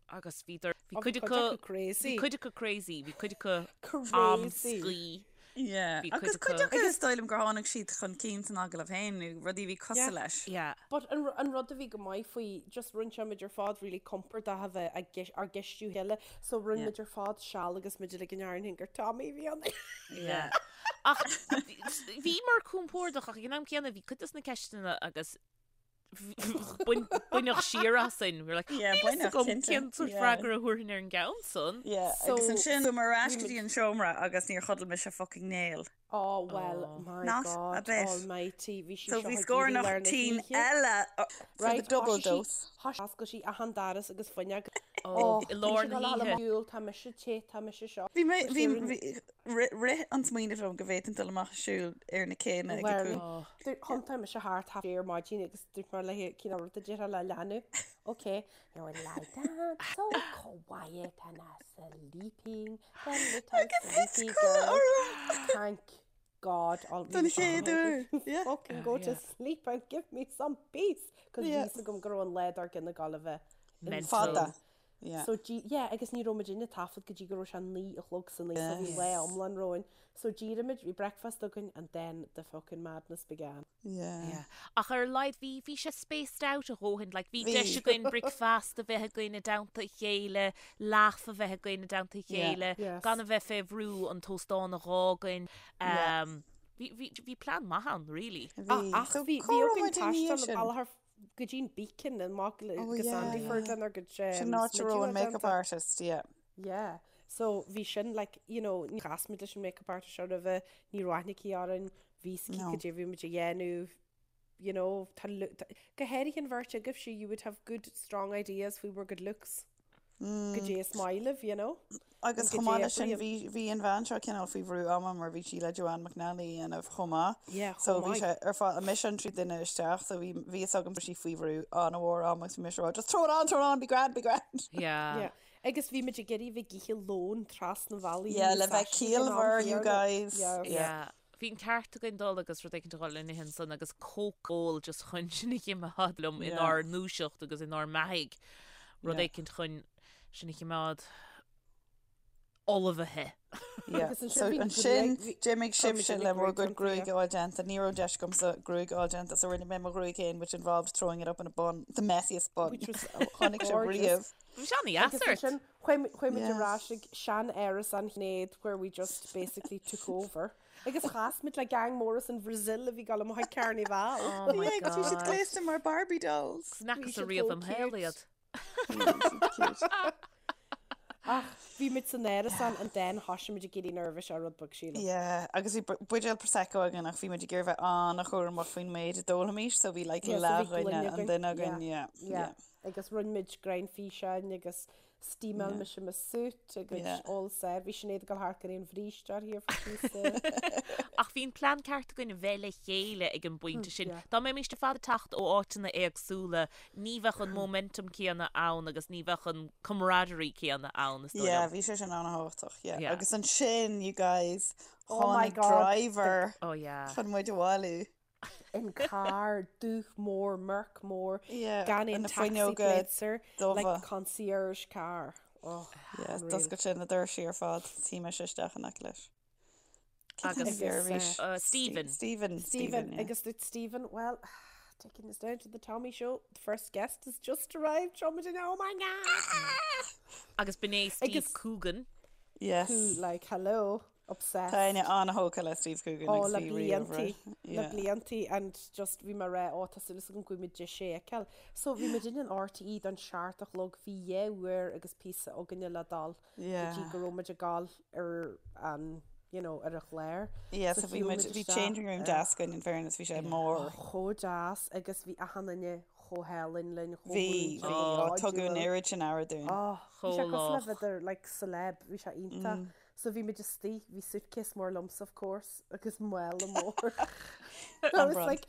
agus bhí bhí Ó, cuid bhí acu cuid acu crazy. bhí cuid acu crazy, bhí cuid acu Crazy. amscaí. Yeah. Bhí cuid Agus cuid acu- acu is dóigh liom gur tháinig siad chun cinn san agallamh féin nó rudaí a bhí cosúil Yeah. leis. Yeah. But an, an rud a bhí go maith faoi, just rinne sé muid ar fad really compordach a bheith ag geis- ár gceistiú chéile, so rinne Yeah. muid ar fad seal agus muid uilig in Éirinn gur Tommy a bhí ann. Yeah. Ach bhíomar compordach ach ag an am céanna bhí cuid de na ceisteanna agus Baineadh siar asainn. We're like, Yeah, níl fhios baineadh, agam cinnte. cén sórt Yeah. freagra a thabharfainn ar an gceann san. Yeah, So, agus ansin chuamar ar ais bhí go muid- dtí an seomra agus níor chodail mise fucking néal. Oh, well, Oh. my Not a God bit. almighty, bhí sí So seo bhí ag iarraidh scornach lár na tinn hoíche. eile uh, for the Right, double thoisigh sí- dose. thoisigh- Oscail sí achan doras agus fuinneog. Oh, Oh, i lár na hoíche. Siúil, tá mise te, tá mise seo. Bhí mé, bhí, Siúil- bhí, rith, rith an smaoineamh liom go bhféadfainn dul amach ag siúl ar na céanna ag a Well, cúl. Oh. Thiontaigh mise thart half ar maidin agus dúirt mé léi cén rud a déarfá le leanbh. Ok, you would lie down so quiet and a sleeping the little Agus thit sleepy codladh girl. orm. Thank God I'll Don chéad uair, yeah. Fucking go to yeah. sleep and give me some peace. Cos Yeah. bhí fhios agam go raibh an lá dár gcionn ag gabháil a bheith Mental. Fada. Yeah. So dí, yeah, agus ní raibh muid ag taifead go dtí go raibh sé 9 a chlog san oíche, so bhí Yes. lá iomlán romhainn. So d'éirigh muid, bhí breakfast againn and then the fucking madness began. Yeah. Yeah. Ach ar a laghad bhí bhí sé spaced out a dhóthain, like bhí Bhí. deis againn bricfeasta a bheith againn i dteannta a chéile, laugh a bheith againn i dteannta a Yeah. chéile, Yes. gan a bheith fé bhrú an t-óstán a dh'fhágaint. Yeah. Um, bhí, bhí, bhí plean maith ann, really. Bhí. Ach So bhí cá bhí raibh againn muid i ndiaidh taisteal sin? an bealach ar go dtí an Beacon amach Oh go yeah, Sandyford yeah. lenár gcuid Sin áit a raibh smideadh an makeup déanta. artist, yeah. Yeah. So bhí sin like, you know, ní chas muid leis an makeup artist seo roimhe, ní raibh aithne aici orainn, bhí a fhios aici No. cad é a bhí muid a dhéanamh, you know, tá lu- tá- go háirithe an bheirt agaibhse, you would have good strong ideas faoi bhur gcuid looks. Cad é is maith libh, you know. Agus Go chomh maith dtí leis sin oibríonn. bhí bhí an bhean seo cineál faoi bhrú ama mar bhí sí le Joanne McNally a dhéanamh chomh maith. Yeah, So chomh bhí maith. sé ar fad mise an tríú duine isteach so bhí bhí fhios agam sí faoi bhrú an-mhór ama agus bhí mise ag rá just throw it on, throw it on, be grand, be grand. Yeah. Yeah. Agus bhí muid ag iarraidh bheith ag ithe lón trasna an bhealaigh Yeah, ní le bheith saisí ag an am ciallmhar, you céanna. guys. Yeah. Yeah. Yeah. Bhí an ceart againn dul agus rud éicint a dhul in ithe ansan agus Coke a ól just chun sinn a chimeád liom Yeah. inár ndúiseacht agus inár mbeathaigh. Rud Yeah. éicint chun sinn a chimeád ullmhaithe. Yeah. Agus ansin So bhí ansin gruaig- bhí- d'imigh chuir muid sibhse uilig le bhur gruaig gcuid déanta, gruaig yeah. a fháil déanta. Ní raibh deis agamsa gruaig a fháil déanta, so rinne mé mo ghruaig féin, which involved throwing it up in a bun, the messiest bun. Which was Chonaic sibh gorgeous. riamh. Bhí sé an-dheas Agus ort. ansin chuaigh chuaigh muid Yes. ar ais ag sean-árasán Shinéad where we just basically took over. Agus chas muid le gang mór as an Brazil a bhí ag dul amach ag Carnival. Oh my Yeah, agus bhí siad God. gléasta mar Barbie dolls. N'fhacas siad ariamh chomh im shaol cute. iad. Yeah, bhí siad cute. Ach bhí muid san árasán and then thoisigh muid ag éirí nervous ar rud beag sílim. Yeah, agus bhí buidéal Prosecco againn ach bhí muid ag iarraidh bheith an-chúramach faoin méid a d'ólfaimis so bhí like Yeah, so bhí leathdhuine gloine an againn. duine againn, Yeah, yeah, yeah. yeah. Agus rinne muid greim físeáin agus steamáil Yeah. mise mo suit agus Yeah. all set. Bhí Sinéad ag dul thart gan aon bhríste uirthi ar feadh píosa. Ach bhí an plean ceart againn a bheith le chéile ag an bpointe sin. yeah. Dá mbeimis ar fad ag teacht ó áiteanna éagsúla, ní bheadh an momentum céanna ann agus ní bheadh an camaraderie céanna ann, is dóigh Yeah, liom. bhí sé sin an-thábhachtach, yeah. Yeah. Agus ansin, you guys, Oh my tháinig God, driver Oh yeah. chun muid a bhailiú. An carr dubh mór, Merc mór, Yeah, gan aon na taxi fuinneoga plates air, like dubha. concierge car. Oh, Yeah, unreal. d'oscail sé na doirsí ar fad, shuigh mise isteach in aice leis. Agus, Agus uh, Stephen. Stephen. Stephen, Stephen, yeah. agus dúirt Stephen, well, taking us down to the Tommy show, the first guest has just arrived, seo muid in, oh my God! Agus b'in é Steve Agus- Coogan. Yes. Who, like, hello, obsessed. Tá Áine an-thógtha le Steve Coogan Oh, agus le bhí riamh bliantaí, roimhe. le Yeah. bliantaí and just bhí mé ag rá, ó tá súil agam go bhfuil muid deis é a fheiceáil. So bhí muid in an RTÉ don seacht a chlog, bhí dhá uair agus píosa againne le dul go dtí Yeah. go raibh muid ag gabháil ar an, you know, ar an chlár. Yeah, So so bhí shiúil muid, muid bhí isteach, changing room eh, deas againn in fairness, bhí sé mór. chomh deas agus bhí achan duine chomh hálainn linn, chomh Bhí, múinte, bhí, ó, chomh tugadh an cairdiúil. oiread sin aire dúinn. Oh, bhí sé Chomh cosúil le lách. bheith ar, like, celeb, bhí sé iontach. So bhí muid istigh, bhí suitcase mór liomsa of course, agus mála mór. I was brand. like,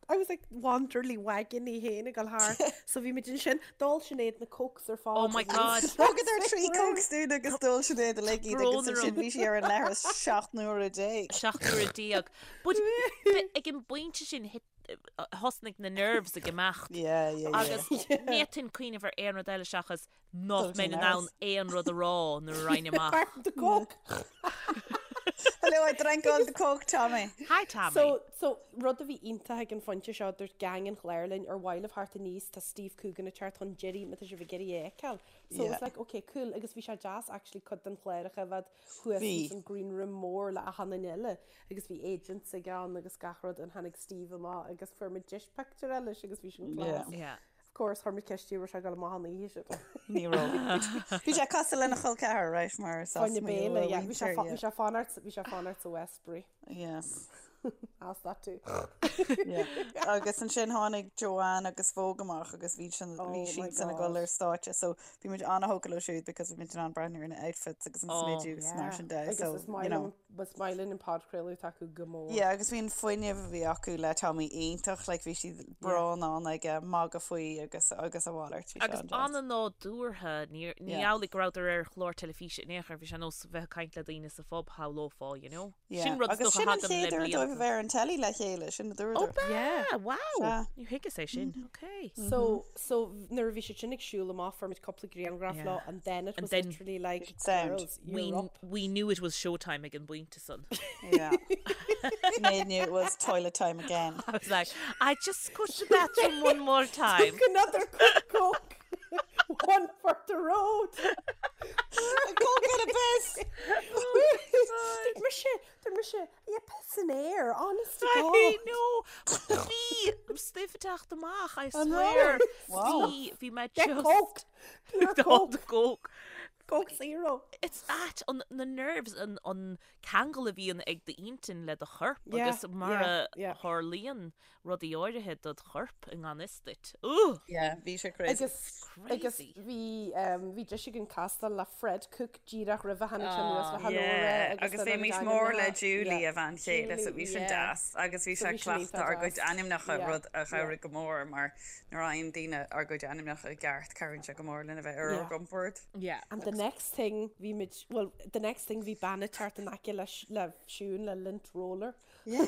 I was like Wanderley wagon í féin ag dul thart. So bhí muid ansin, d'ól Sinéad na cokes ar fad. Oh my God. Thugadar 3 cokes dúinn agus d'ól Sinéad uilig iad agus Brón ansin orm. bhí sí ar an leithreas 17 nuaire. 17 nuaire. But ag an bpointe sin hit thosnaigh na nerves ag imeacht. Yeah, yeah, yeah. Agus ní fhéadfainn cuimhneamh ar aon rud eile seachas nach Dul mbeinn sin in ann aon rud a rá nuair a raghainn amach. Apart from the coke. Hello, I drank all the coke, Tommy. Hi Tommy. So, so rud a bhí iontach ag an phointe seo, dúirt gang an chláir linn ar mhaith libh theacht aníos, tá Steve Coogan ag teacht chun deiridh má tá sibh ag iarraidh é a fheiceáil. So Yeah. it's like, okay, cool, agus bhí sé deas actually cuid den chlár a choimhéad thuas Bhí. ins an green room mór le achan duine eile agus bhí agents ag ann agus gach rud and tháinig Steve amach agus fuair muid deis pictiúr eile leis agus bhí sin Yeah. class. Yeah. Of course, chuir muid ceist air raibh sé ag dul amach an oíche sin. Ní raibh. Bhí sé cosúil lena chol ceathar, right, mar is as Fáinne Maigh Eo béile, a yeah. Bhí sé mhuintir, fa- yeah. bhí sé fanacht bhí sé fanacht sa Westbury. Yes. Ask that too. Yeah. Agus ansin tháinig Joanne agus Vogue amach agus bhí sin Oh bhí my siad san ag dul God. ar stáitse so bhí muid an-thógtha leo siúd because bhí muid in ann breathnú ar na outfits agus an Oh. smideadh agus mar sin de Agus so is maith you know. liom was maith linn an podchraoladh atá acu go mór. Yeah, agus bhí an fuinneamh a bhí acu le Tommy iontach, like bhí siad breá in ann ag magadh faoi agus agus a mhalairt, bhí sé Agus an-deas. an-nádúrtha, ní ní Yeah. amhlaidh go rabhadar ar chlár teilifíse in aon chor, bhí sé ar nós bheith ag caint le daoine sa phub, shamhlófá, you know. Yeah. Sin rud is Agus dócha sin an a thagann le chéad uair dóibh a blianta. bheith ar an telly le chéile, sin a Ó dúradar. b'ea! Yeah. Wow! Sea. Níor thuigeas é sin. Ok. So, so nuair a bhí siad sin ag siúl amach fuair muid cúpla grianghraf Yeah. leo and then it And was then literally like Sound. girls, We, you're up. we knew it was showtime ag an bpointe san. Yeah. Sinéad knew it was toilet time again. I was like, I just go to the bathroom one more time. Took another quick coke. One for the road. A coke and a piss! Dúirt mise, dúirt mise, yeah, piss in air, honest to I God. know. Bhí stuif ag teacht amach, I An swear. raibh? Wow. Bhí, bhí mé Get just... coke. Pure All coke. the coke. Coke zero. It's that, an, na nerves, an, an ceangal a bhíonn ag d'intinn le do chorp Yeah, agus mar yeah, a yeah. tharlaíonn rudaí áirithe dod chorp i ngan fhios duit. Ooh! Yeah, bhí sé crazy. Agus agus Crazy. bhí um, bhí deis againn castáil le Fred Cooke díreach roimhe tháinig sé anuas le hello a rá Yeah, agus agus le bhí na muid mór le ainmneacha. Julie Yeah. a bhean chéile so Julie, bhí sin yeah. deas agus bhí So sé bhí sin cleachta iontach ár gcuid deas. ainmneacha Yeah, rud a yeah. chabhraigh go mór mar nuair a fhaigheann daoine ár gcuid ainmneacha i gceart cabhraíonn sé go mór linn a bheith ar ár Yeah. gcompord. Yeah. And the next thing bhí muid, well, the next thing bhí bean ag teacht in aice le, le Siún le lint roller. Yeah.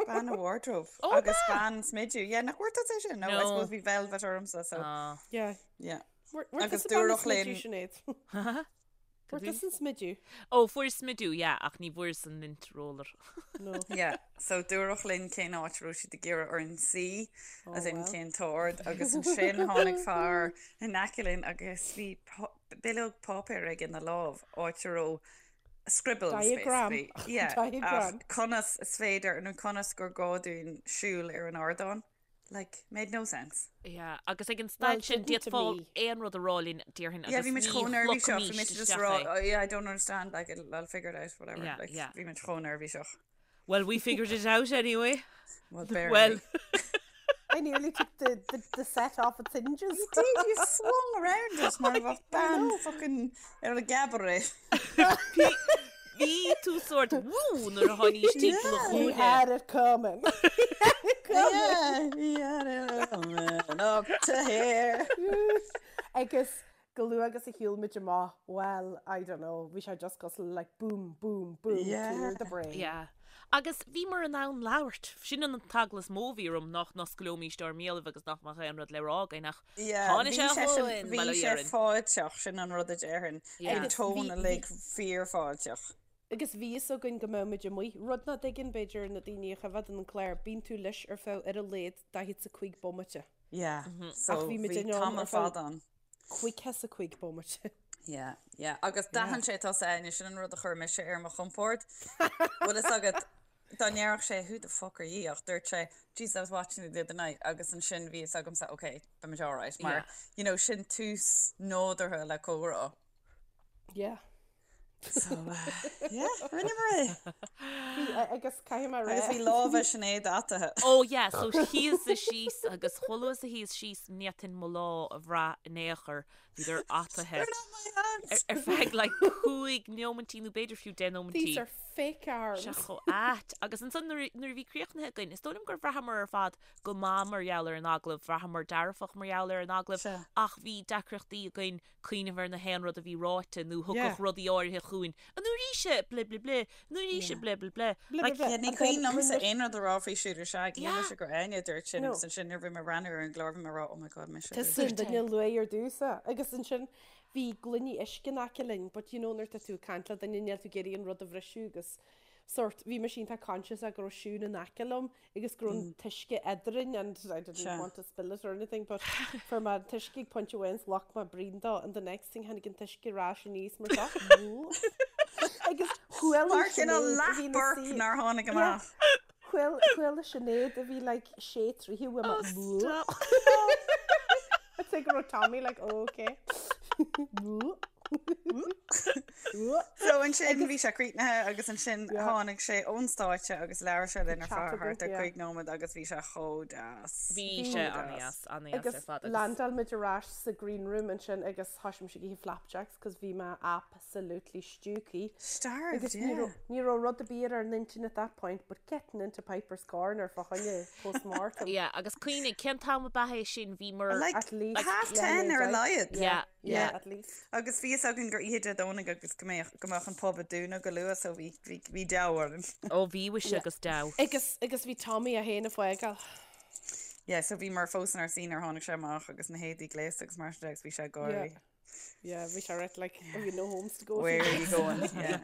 Bean a wardrobe. Oh, Agus bean smideadh. Yeah, nach bhfuair tusa é sin? No, I No. suppose bhí velvet ormsa, so Ah. Yeah. yeah. Fuair Agus tusa bean dúradh linn- smideadh, Sinéad? Fuair tusa an smideadh? Ó, fuair smideadh, yeah, ach ní bhfuair an lint roller. No. Yeah, so dúradh linn cén áit a raibh siad ag iarraidh orainn suí, as in well. cén t-ord, agus ansin tháinig fear in aice linn agus bhí bileog páipéir aige ina lámh, áit a raibh scribbles, Diagram. basically. Yeah, Diagram. ach conas is féidir nó conas gur gá dúinn siúl ar an ardán. Like, made no sense. Yeah, agus ag an staid sin didn't to d'fhéadfá me. aon rud a rá linn, déarfainn, Yeah, agus bhí muid ní chomh neirbhíseach, bhí shlogfaimís muid just isteach rá, é. oh yeah, I don't understand, like, it'll, I'll figure it out, whatever. Yeah, Like, yeah. bhí muid chomh neirbhíseach. Well, we figured it out anyway. Well, barely. Well, I nearly took the, the, the set off its hinges. You did, you swung around it mar a bheadh bean fucking ar a gcabaret. Bhí tú sórt woo nuair a tháinís timpeall an He chúinne. had it coming. Yeah, he had it coming up to here. Agus chomh luath agus a shiúil muid amach, well, I don't know, bhí sé just cosúil le like boom, boom, boom, Yeah. clear the brain. Yeah. Agus bhíomar in ann labhairt. Sin an t-eagla is mó a bhí orm nach n-osclóimís ár mbéalaibh agus nach mbeadh aon rud le rá againn ach Yeah, tháinig bhí sé sé sin- chugainn, bhí bail ó sé Dhia orainn. fáilteach, sin an rud a déarfainn. Yeah. Bhí an Agus tón bhí- uilig fíorfháilteach. Agus bhí fhios againn go mbeadh muid amuigh, rud nach dtuigeann b'fhéidir na daoine a choimhéadann an clár, bíonn tú leis ar feadh ar a laghad 45 bomaite. Yeah, so Ach bhí muid bhí in ann tamall ar feadh- fada ann. 55 bomaite. Yeah, yeah. Agus d'aithin sé tusa Áine, sin an rud a chuir mise ar mo chompord. Bhfuil fhios agat, dá ndéarfadh sé who the fuck are you ach dúirt sé Jesus I was watching you the other night agus ansin bhí fhios agamsa ok, beimid alright mar Yeah. you know sin tús nádúrtha le comhrá. Yeah. So uh, yeah, rinneamar é. Bhí, agus caithfidh mé a rá. Agus bhí lámha Sinéad ataithe. Oh yeah, so shuíos-sa síos agus chomh luath is a shuíos síos ní fhéadfainn mo lámha a bhrath in aon chor, bhíodar ataithe. They're not my hands. Ar feadh like 5 neomaintí nó b'fhéidir fiú 10 nóimintí. These are fake arms. Sé chomh ait. Agus ansan nuair a bhí críochnaithe againn, is dóigh liom gur bhraitheamar ar fad go maith mar gheall ar an agallamh, bhraitheamar dearfach mar gheall ar an agallamh ach bhí deacrachtaí againn cuimhneamh ar na haon rud a bhí ráite nó thiocfadh rudaí áirithe chugainn. An uair ise, ble ble ble, an uair ise, ble ble ble. Like, Yeah, ní cuimhin liomsa aon rud a rá faoi Shooter Shag, Yeah. shíl mise gur Áine a dúirt sin No. agus ansin nuair a bhí mé ag breathnú ar an gclár bhí mé ag rá oh my god mise a dúirt Tusa an duine a luaigh ar dtús é. Agus ansin bhí gloiní uisce in aice linn, but you know nuair atá tú ag caint le duine níl tú ag iarraidh an rud a bhriseadh agus sort bhí mise iontach conscious go raibh Siún in aice liom agus go raibh an t-uisce eadrainn and I didn't Sure. want to spill it or anything but fuair mé an t-uisce ag pointe amháin 's ghlac mé braon dó and the next thing tháinig an t-uisce ar ais aníos mar seo agus chuala Mar cineál Sinéad a bhí ina leath-burp suí- nár tháinig Yeah. amach. Chuala chuala Sinéad a bhí like sé troithe uaim Oh, stop. I'd say go raibh Tommy like oh, okay. So ansin bhí sé críochnaithe agus ansin tháinig sé ón stáitse agus labhair sé linn ar feadh thart ar 5 nóiméad agus bhí sé chomh deas. Bhí sé an-deas, an-deas ar fad agus landáil muid ar ais sa green room ansin agus thoisigh mise ag ithe flapjacks cos bhí mé absolutely stiúgthaí. Starved, Agus ní yeah. raibh ní raibh rud ar bith ar ár n-intinn at that point but getting into Piper's Corner fá choinne post-mortem. Yeah, agus cuimhnigh, cén t-am ab ea é sin? Bhíomar. Like, At least half ten ar a laghad. Yeah, yeah. At least. Agus bhí fhios againn gur oíche Dé Domhnaigh agus go mbeadh go mbeadh an pub ag dúnadh go luath so bhí bhí bhí deabhadh orainn. Ó bhí mhuise agus deabhadh. Agus agus bhí Tommy é féin ag fágáil. Yeah, so bhíomar fós inár suí nuair a tháinig sé amach agus na héadaí gléasta agus mar sin de agus bhí sé ag gáirí. Yeah. Yeah, bhí sé right like, have you no homes to go Where are you going? Yeah.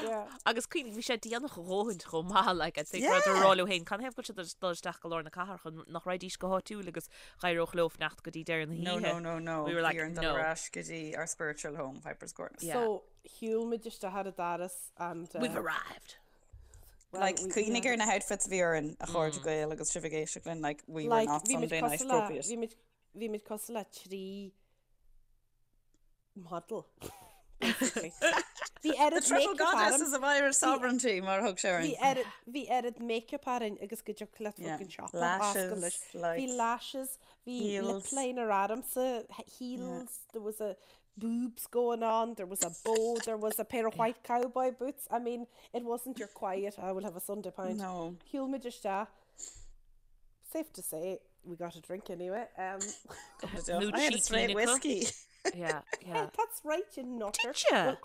Yeah. Agus cuimhnigh, bhí sé déanach a dhóthain chomh maith, like, I'd say go rabhadar ag rá leo féin, canathaobh go bhfuil siad ag dul isteach go lár na cathrach chun nach raghaidís go háitiúil agus d'éireodh leo fanacht go dtí deireadh na No, hoíche. no, no, no. We were like, Bhí orainn dul no. ar ais go dtí our spiritual home, Piper's Corner. Yeah. So, shiúil muid isteach ar an doras and... Uh, We've arrived. well, Like, we- cuimhnigh yeah. ar na outfits a bhí orainn a chairde Gael agus sibh ag éisteacht linn, like, we were Like, not bhí muid Sunday night cosúil le- appropriate. bhí muid- bhí muid cosúil le 3 model, basically. Bhí The oiread triple make-up goddesses orm. of Irish sovereignty, mar a thug sé Bhí orainn. oiread bhí oiread make-up orainn agus go dtiocfadh leat Yeah. fucking siopa a oscailt Lashes, leis. Bhí like, lashes, bhí lip heels. liner ormsa, Yeah. heels, there was a boobs going on, there was a bow, there was a pair of white cowboy boots. I mean, it wasn't your quiet, I will have a Sunday pint. No. Shiúil muid isteach. Safe to say, we got a drink anyway. Um, Nó I had a cheeky straight Nicola. whiskey. Yeah, yeah. That's right, you nutter. Did you? Well,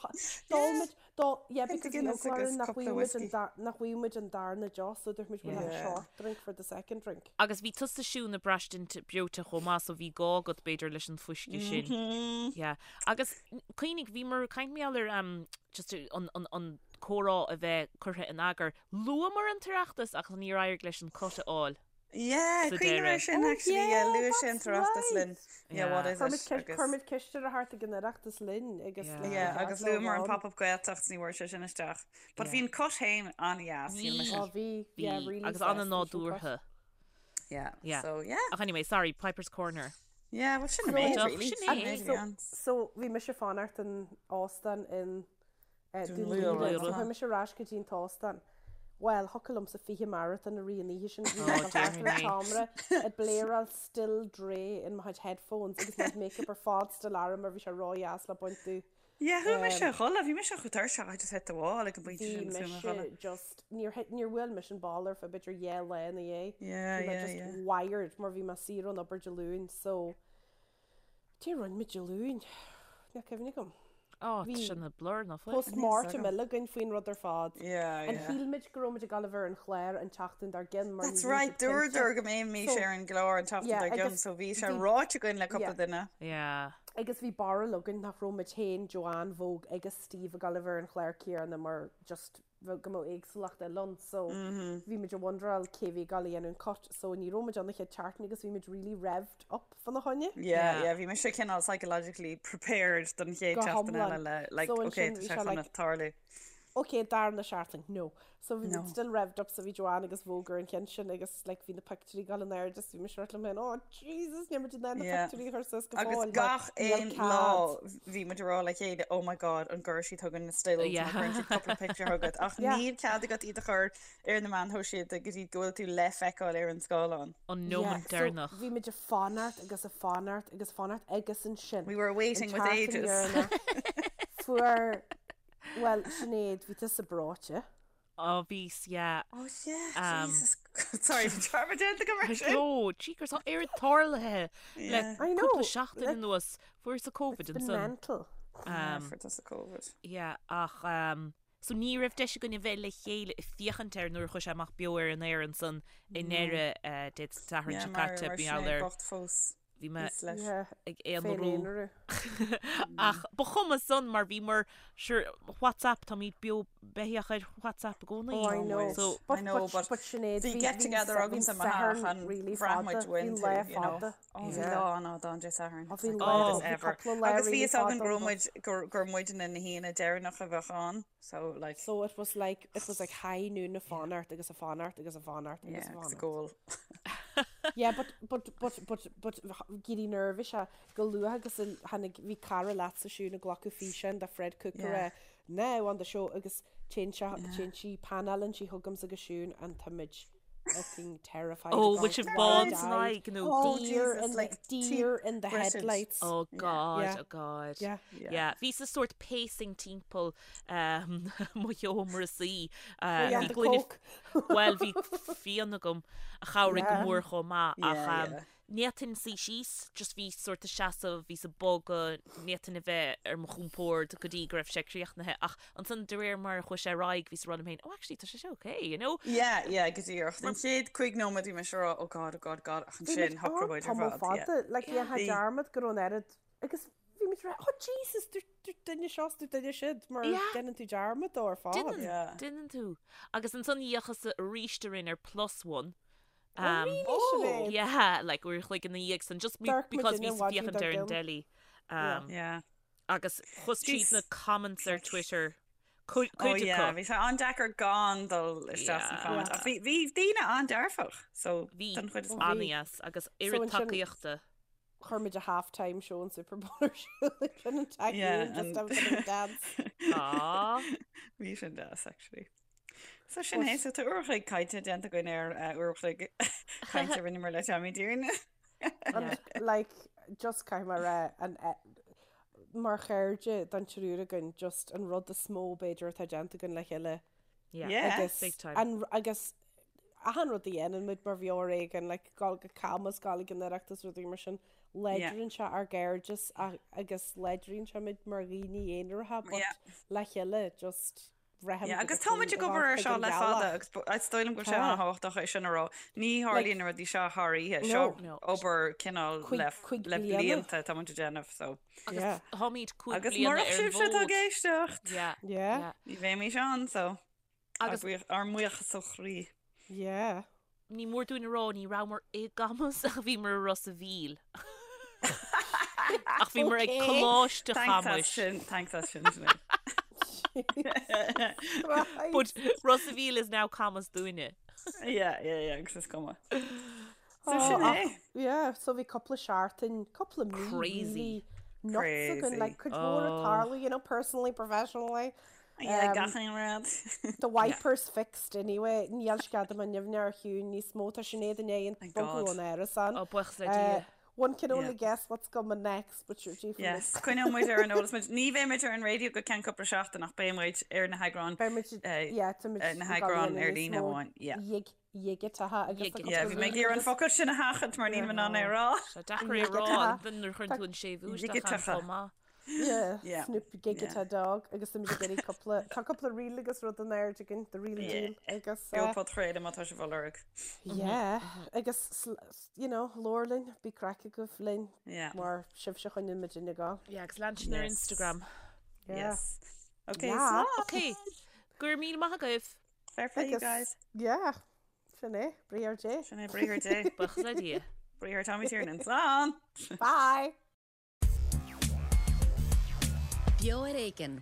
d'ól muid, d'ól, yeah, Pint because of bhí Guinness eagla agus orainn nach cúpla bhfuigheadh muid an whiskey. dar, nach bhfuigheadh muid an darna deoch, so dúirt muid we'll have a Yeah. short drink for the second drink. Agus bhí tusa Siún ag braistint breoite chomh maith so bhí gá agat b'fhéidir leis an fuisce sin. Mm-hmm. Yeah. Agus cuimhnigh, bhíomar ag caint mar gheall ar um, just an, an, an comhrá a bheith curtha in eagar. Luamar an tOireachtas ach níor éirigh leis an cut a fháil. Yeah, Sa cuimhním air deireadh. sin Oh actually, yeah, yeah, luaigh sé an that's tOireachtas linn. right. Yeah, what Yeah. is Chuir muid it? ceist, Agus chuir muid ceist ar a thart ag an Oireachtas linn agus Yeah. like ba Yeah, cheart agus leo a luamar an bheith ann. pop-up Gaeltacht ní bhfuair sé sin isteach. But Yeah. bhí an cut féin an-dheas, shíl Bhí. mise. Oh, bhí, yeah, Bhí. really Agus sásúil sin cut. an-nádúrtha. Yeah. Yeah. So, yeah. Ach anyway, sorry, Piper's Corner. Yeah, well, sin an méid, So- really. Sin é. Sin é. So, bhí mise ag fanacht in óstán in eh, Dún Dún Laoghaire. Laoghaire. So, chuaigh mise ar ais go dtí an t-óstán. Bhuel, thiocfadh liomsa 20 marathon a rith an oíche sin. Bhí mé Oh, thart ar an dear me. tseomra ag bléaráil Still Dre in mo chuid headphones agus mo chuid makeup ar fad still orm mar bhí sé ródheas le baint domh. Yeah, chuaigh mise a chodladh, bhí mise chomh tuirseach, I just hit the wall ag an bpointe Bhí sin agus chuaigh mé a chodladh. mise just, níor hit, níor bhuail mise an ball ar feadh b'fhéidir dhá lá ina dhiaidh. Yeah, Bhí mé yeah, just yeah. wired mar bhí mé saor ón obair Dé Luain so cad é a rinne muid Dé Luain? Níl cuimhne agam. Ó, tá Bhí sin ina blur ná fuil? Post-mortem eile againn faoin rud ar fad. Yeah, An yeah. shíl muid go raibh muid ag gabháil a bheith ar an chlár an tseachtain dár gcionn mar ní That's raibh right, siad cinnte. dúradar go mbeimis So, ar an gclár an tseachtain yeah, dár gcionn, agus so bhí sé bhí- ráite againn le cúpla yeah. duine. Yeah. Agus bhí barúil againn nach raibh muid féin, Joanne, Vogue agus Steve ag gabháil a bheith ar an chlár céanna mar just bheadh go mbeadh éagsúlacht eile ann so bhí muid ag wonderáil cé bhí ag gabháil a dhéanamh an cut so ní raibh muid ann an chéad tseachtain agus bhí muid really revved up fána choinne. Yeah, yeah, bhí mise cineál psychologically prepared don chéad Go seachtain eile hiomlán. le like So okay ansin tá bhí sé sé chun like tarlú. okay darna seachtain no. So bhí No. muid still revved up so bhí Joanne agus Vogue ar an cheann sin agus like bhí na pictiúirí ag gabháil in airde so bhí mise ag rá liom féin oh Jesus níl muid in ann na Yeah. pictiúirí a chur suas go Agus fóill mar gach níl aon cead. lá bhí muid ag rá le chéile oh my god an gcuirfidh siad chugainn na stills má Yeah. chuireann siad cúpla pictiúr chugat ach Yeah. níl cead agat iad a chur ar na meáin shóisialta go dtí go bhfuil tú le feiceáil ar an scáileán. An Yeah, nóiméad so deireanach. bhí muid ag fanacht agus ag fanacht agus ag fanacht agus ansin We were an waiting with tseachtain ages. dheireanach fuair Bhuel, Sinéad, bhí tusa breoite. Ó, bhíos, yeah. Oh yeah, Jesus. Sorry, bhí dearmad déanta agam ar sin. No, jeekers, tá oiread tarlaithe le I know. cúpla seachtain anuas. Fuaireas-sa Covid It's been ansan. mental. Yeah, fuair tusa Covid. Yeah, ach um, so ní raibh deis againn a bheith le chéile ag féachaint air nuair a chuaigh sé amach beo ar an aer ansan i ndeireadh uh, Dé Sathairn Yeah, seo mar caite, mar bhí Sinéad ar bocht fós. Bhí mé ag aonarú. Ach ba chuma san mar bhíomar sure WhatsApp táimid beo beathach ar WhatsApp i gcónaí. Oh I know. So But I know, but but Sinéad bhí bhí get bhí together agamsa i mo Satharn theach an really bhraith muid fada. Bhí uainn lá tú, you know. fada. Oh, bhí Yeah. lá an-fhada ann Dé Sathairn. Oh It's bhí like lá longest bhí ever. cúpla lá Agus bhí really fhios againn fada go raibh ann but muid gur gur muidne na haoinne deireanach a bheadh ann. So like So it was like it was like high noon ag fanacht agus ag fanacht agus ag fanacht agus yeah, a agus a fanacht. goal. Yeah, but but but but but éirí neirbhíseach go luath agus a tháinig bhí cara leatsa Siún ag glacadh físeáin de Fred Cooke Yeah. ag rá now on the show agus téann sé Yeah. téann sí panálann sí chugamsa agus Siún and táimid fucking terrified Oh, ag bhfuil sibh gabháil bán san wide-eyed. aghaidh nó Oh, Deer Jesus, in the like deer in the British. headlights. Oh God, Yeah. oh God. Yeah. Yeah. Yeah, bhíos-sa sórt pacing timpeall um, mo sheomra suí. Oh Uh, yeah, bhí the gloine coke. Bhuel, bhí fíon agam a chabhraigh go Yeah. mór chomh maith ach Yeah, um, yeah. ní fhéadfainn suí síos, just bhí sórt ag seasamh, bhíos ag bogadh, ní fhéadfainn a bheith ar mo chompord go dtí go raibh sé críochnaithe ach ansan de réir mar a chuaigh sé ar aghaidh bhíos ag rá liom féin, oh actually tá sé seo okay, you know? Yeah, yeah, go díreach. An chéad chúig nóiméad bhí mise ag rá, oh God, oh God, God, ach Bhí muid ansin shocraigh ann muid ar tamall fad, yeah. fada, like Yeah. dhéanfá Bhí. dearmad go raibh an oiread agus bhí muid ag rá, oh Jesus, dúirt duine seo is dúirt duine siúd mar Yeah. déanann tú dearmad dó ar fad. Déanann, Yeah. déanann tú. Agus ansan d'fhéachas-sa arís orainn ar Plus One Oh Um, really, Oh! Sinéad? yeah, like uair a chloig ina dhiaidh san, just me, D'amharc muid because in bhíos ag an mhaidin féachaint dár ar an gcionn. dteilí. Yeah. Um, Yeah. agus chuas tríd Jeez. na comments ar Twitter, cuid Oh cuid yeah, acu. bhí sé an-deacair gan dul isteach sna Yeah. comments. Ach bhí bhí daoine an-dearfach, so Bhí don chuid is Oh, mó. bhí. an-dheas agus So oiread ansin tacaíochta. chuir muid a half-time show an Super Bowl ar siúl ansin an tag Yeah, just and have a bit of a dance. Aw. Bhí sin deas actually. So sin But é, so tá uair a chloig cainte déanta againn ar eh, uair a chloig cainte a rinneamar le Tommy Tiernan. And Yeah. like just caithfidh mé a rá an eh, mar chairde don triúr againn just an rud is mó b'fhéidir atá déanta againn le chéile Yeah. Yeah. agus Big time. an agus achan rud a dhéanann muid mar bheo ar éigean like gabháil go Camas gabháil ag an Oireachtas rudaí mar sin Yeah. láidríonn sé ár gcairdeas a- agus láidríonn sé muid mar dhaoine aonaracha but Yeah. le chéile just Yeah, braithim go agus tá muid dtiocfainn ag a obair ghabháil ar chuig seo an le fada ghealach. agus is dóigh liom go bhfuil sé Tá. an-thábhachtach é sin a rá. Ní Like, tharlaíonn na rudaí seo thar oíche, seo no. No. obair cineál Cuig, le, cuig le bliana. blianta tá muid ag déanamh, so. Agus Yeah. táimid cúig Agus bliana murach ar an sibhse atá ag bhfód. éisteacht, Yeah. Yeah. Yeah. ní bheimis ann, so. Ár Agus buíoch- ár mbuíochas ó chroí. Yeah. Ní mór dúinn a rá ní rabhamar i gCamus ach bhíomar i Ros a' Mhíl. Ach bhíomar ag Okay. Coláiste Thanks as Chamuis. sin, thanks as sin, Sinéad. But Christ. Ros a' Mhíl is now Camus dúinne. Yeah, yeah, yeah, agus is cuma. So sin é. Yeah, so bhí cúpla seachtain, cúpla mí Crazy. really nuts againn, Crazy. like cuid mhór ag tarlú, you know, personally, professionally. Yeah, gach aon rud. The wipers fixed anyway, níl sceadamán nimhne ar chiúin níos mó, tá Sinéad i ndiaidh an Thank bogadh God. ón árasán. Ó, buíochas le Dia. One can only Yeah. guess what's coming next, but sure, gee, Yes, coinneoidh muid ar an eolas muid. Ní bheidh muid ar an raidió go ceann cúpla seachtain ach beidh muid ar na heagráin Beidh muid, eh, yeah, tá muid eh, na ag gabháil heagráin ar níos líne mó amháin. Yeah. dhig- dhigiteacha agus Dhigiteacha. tá cúpla Yeah, bhí mé ag iarraidh an focal sin a sheachaint mar níl mé in ann é a rá. Tá deacair é a rá Dhigiteacha. an nuair a chuireann tú an séimhiú isteach ann Dhigiteacha. chomh maith. Yeah, Yeah. Snoop Gigita Dog agus tá muid ag iarraidh cúpla tá cúpla reel agus rud in airde againn, the real Yeah. deal agus Beo eh, podchraoladh má tá sibh á lorg. yeah agus sl- you know, labhair linn, bíodh craic agaibh linn Yeah. mar sibhse a choinníonn muid ag gabháil. Yeah, agus lean sinn ar Yes. Instagram. Yeah. Yes. Okay, Yeah. slán. Ok, go raibh míle maith agaibh. Fair play, you Agus guys. yeah, sin é, Briathar Dé. Sin é Briathar Dé. Buíochas le Dia. Briathar Tommy Tiernan. Slán! Bye! Beo ar Éigean.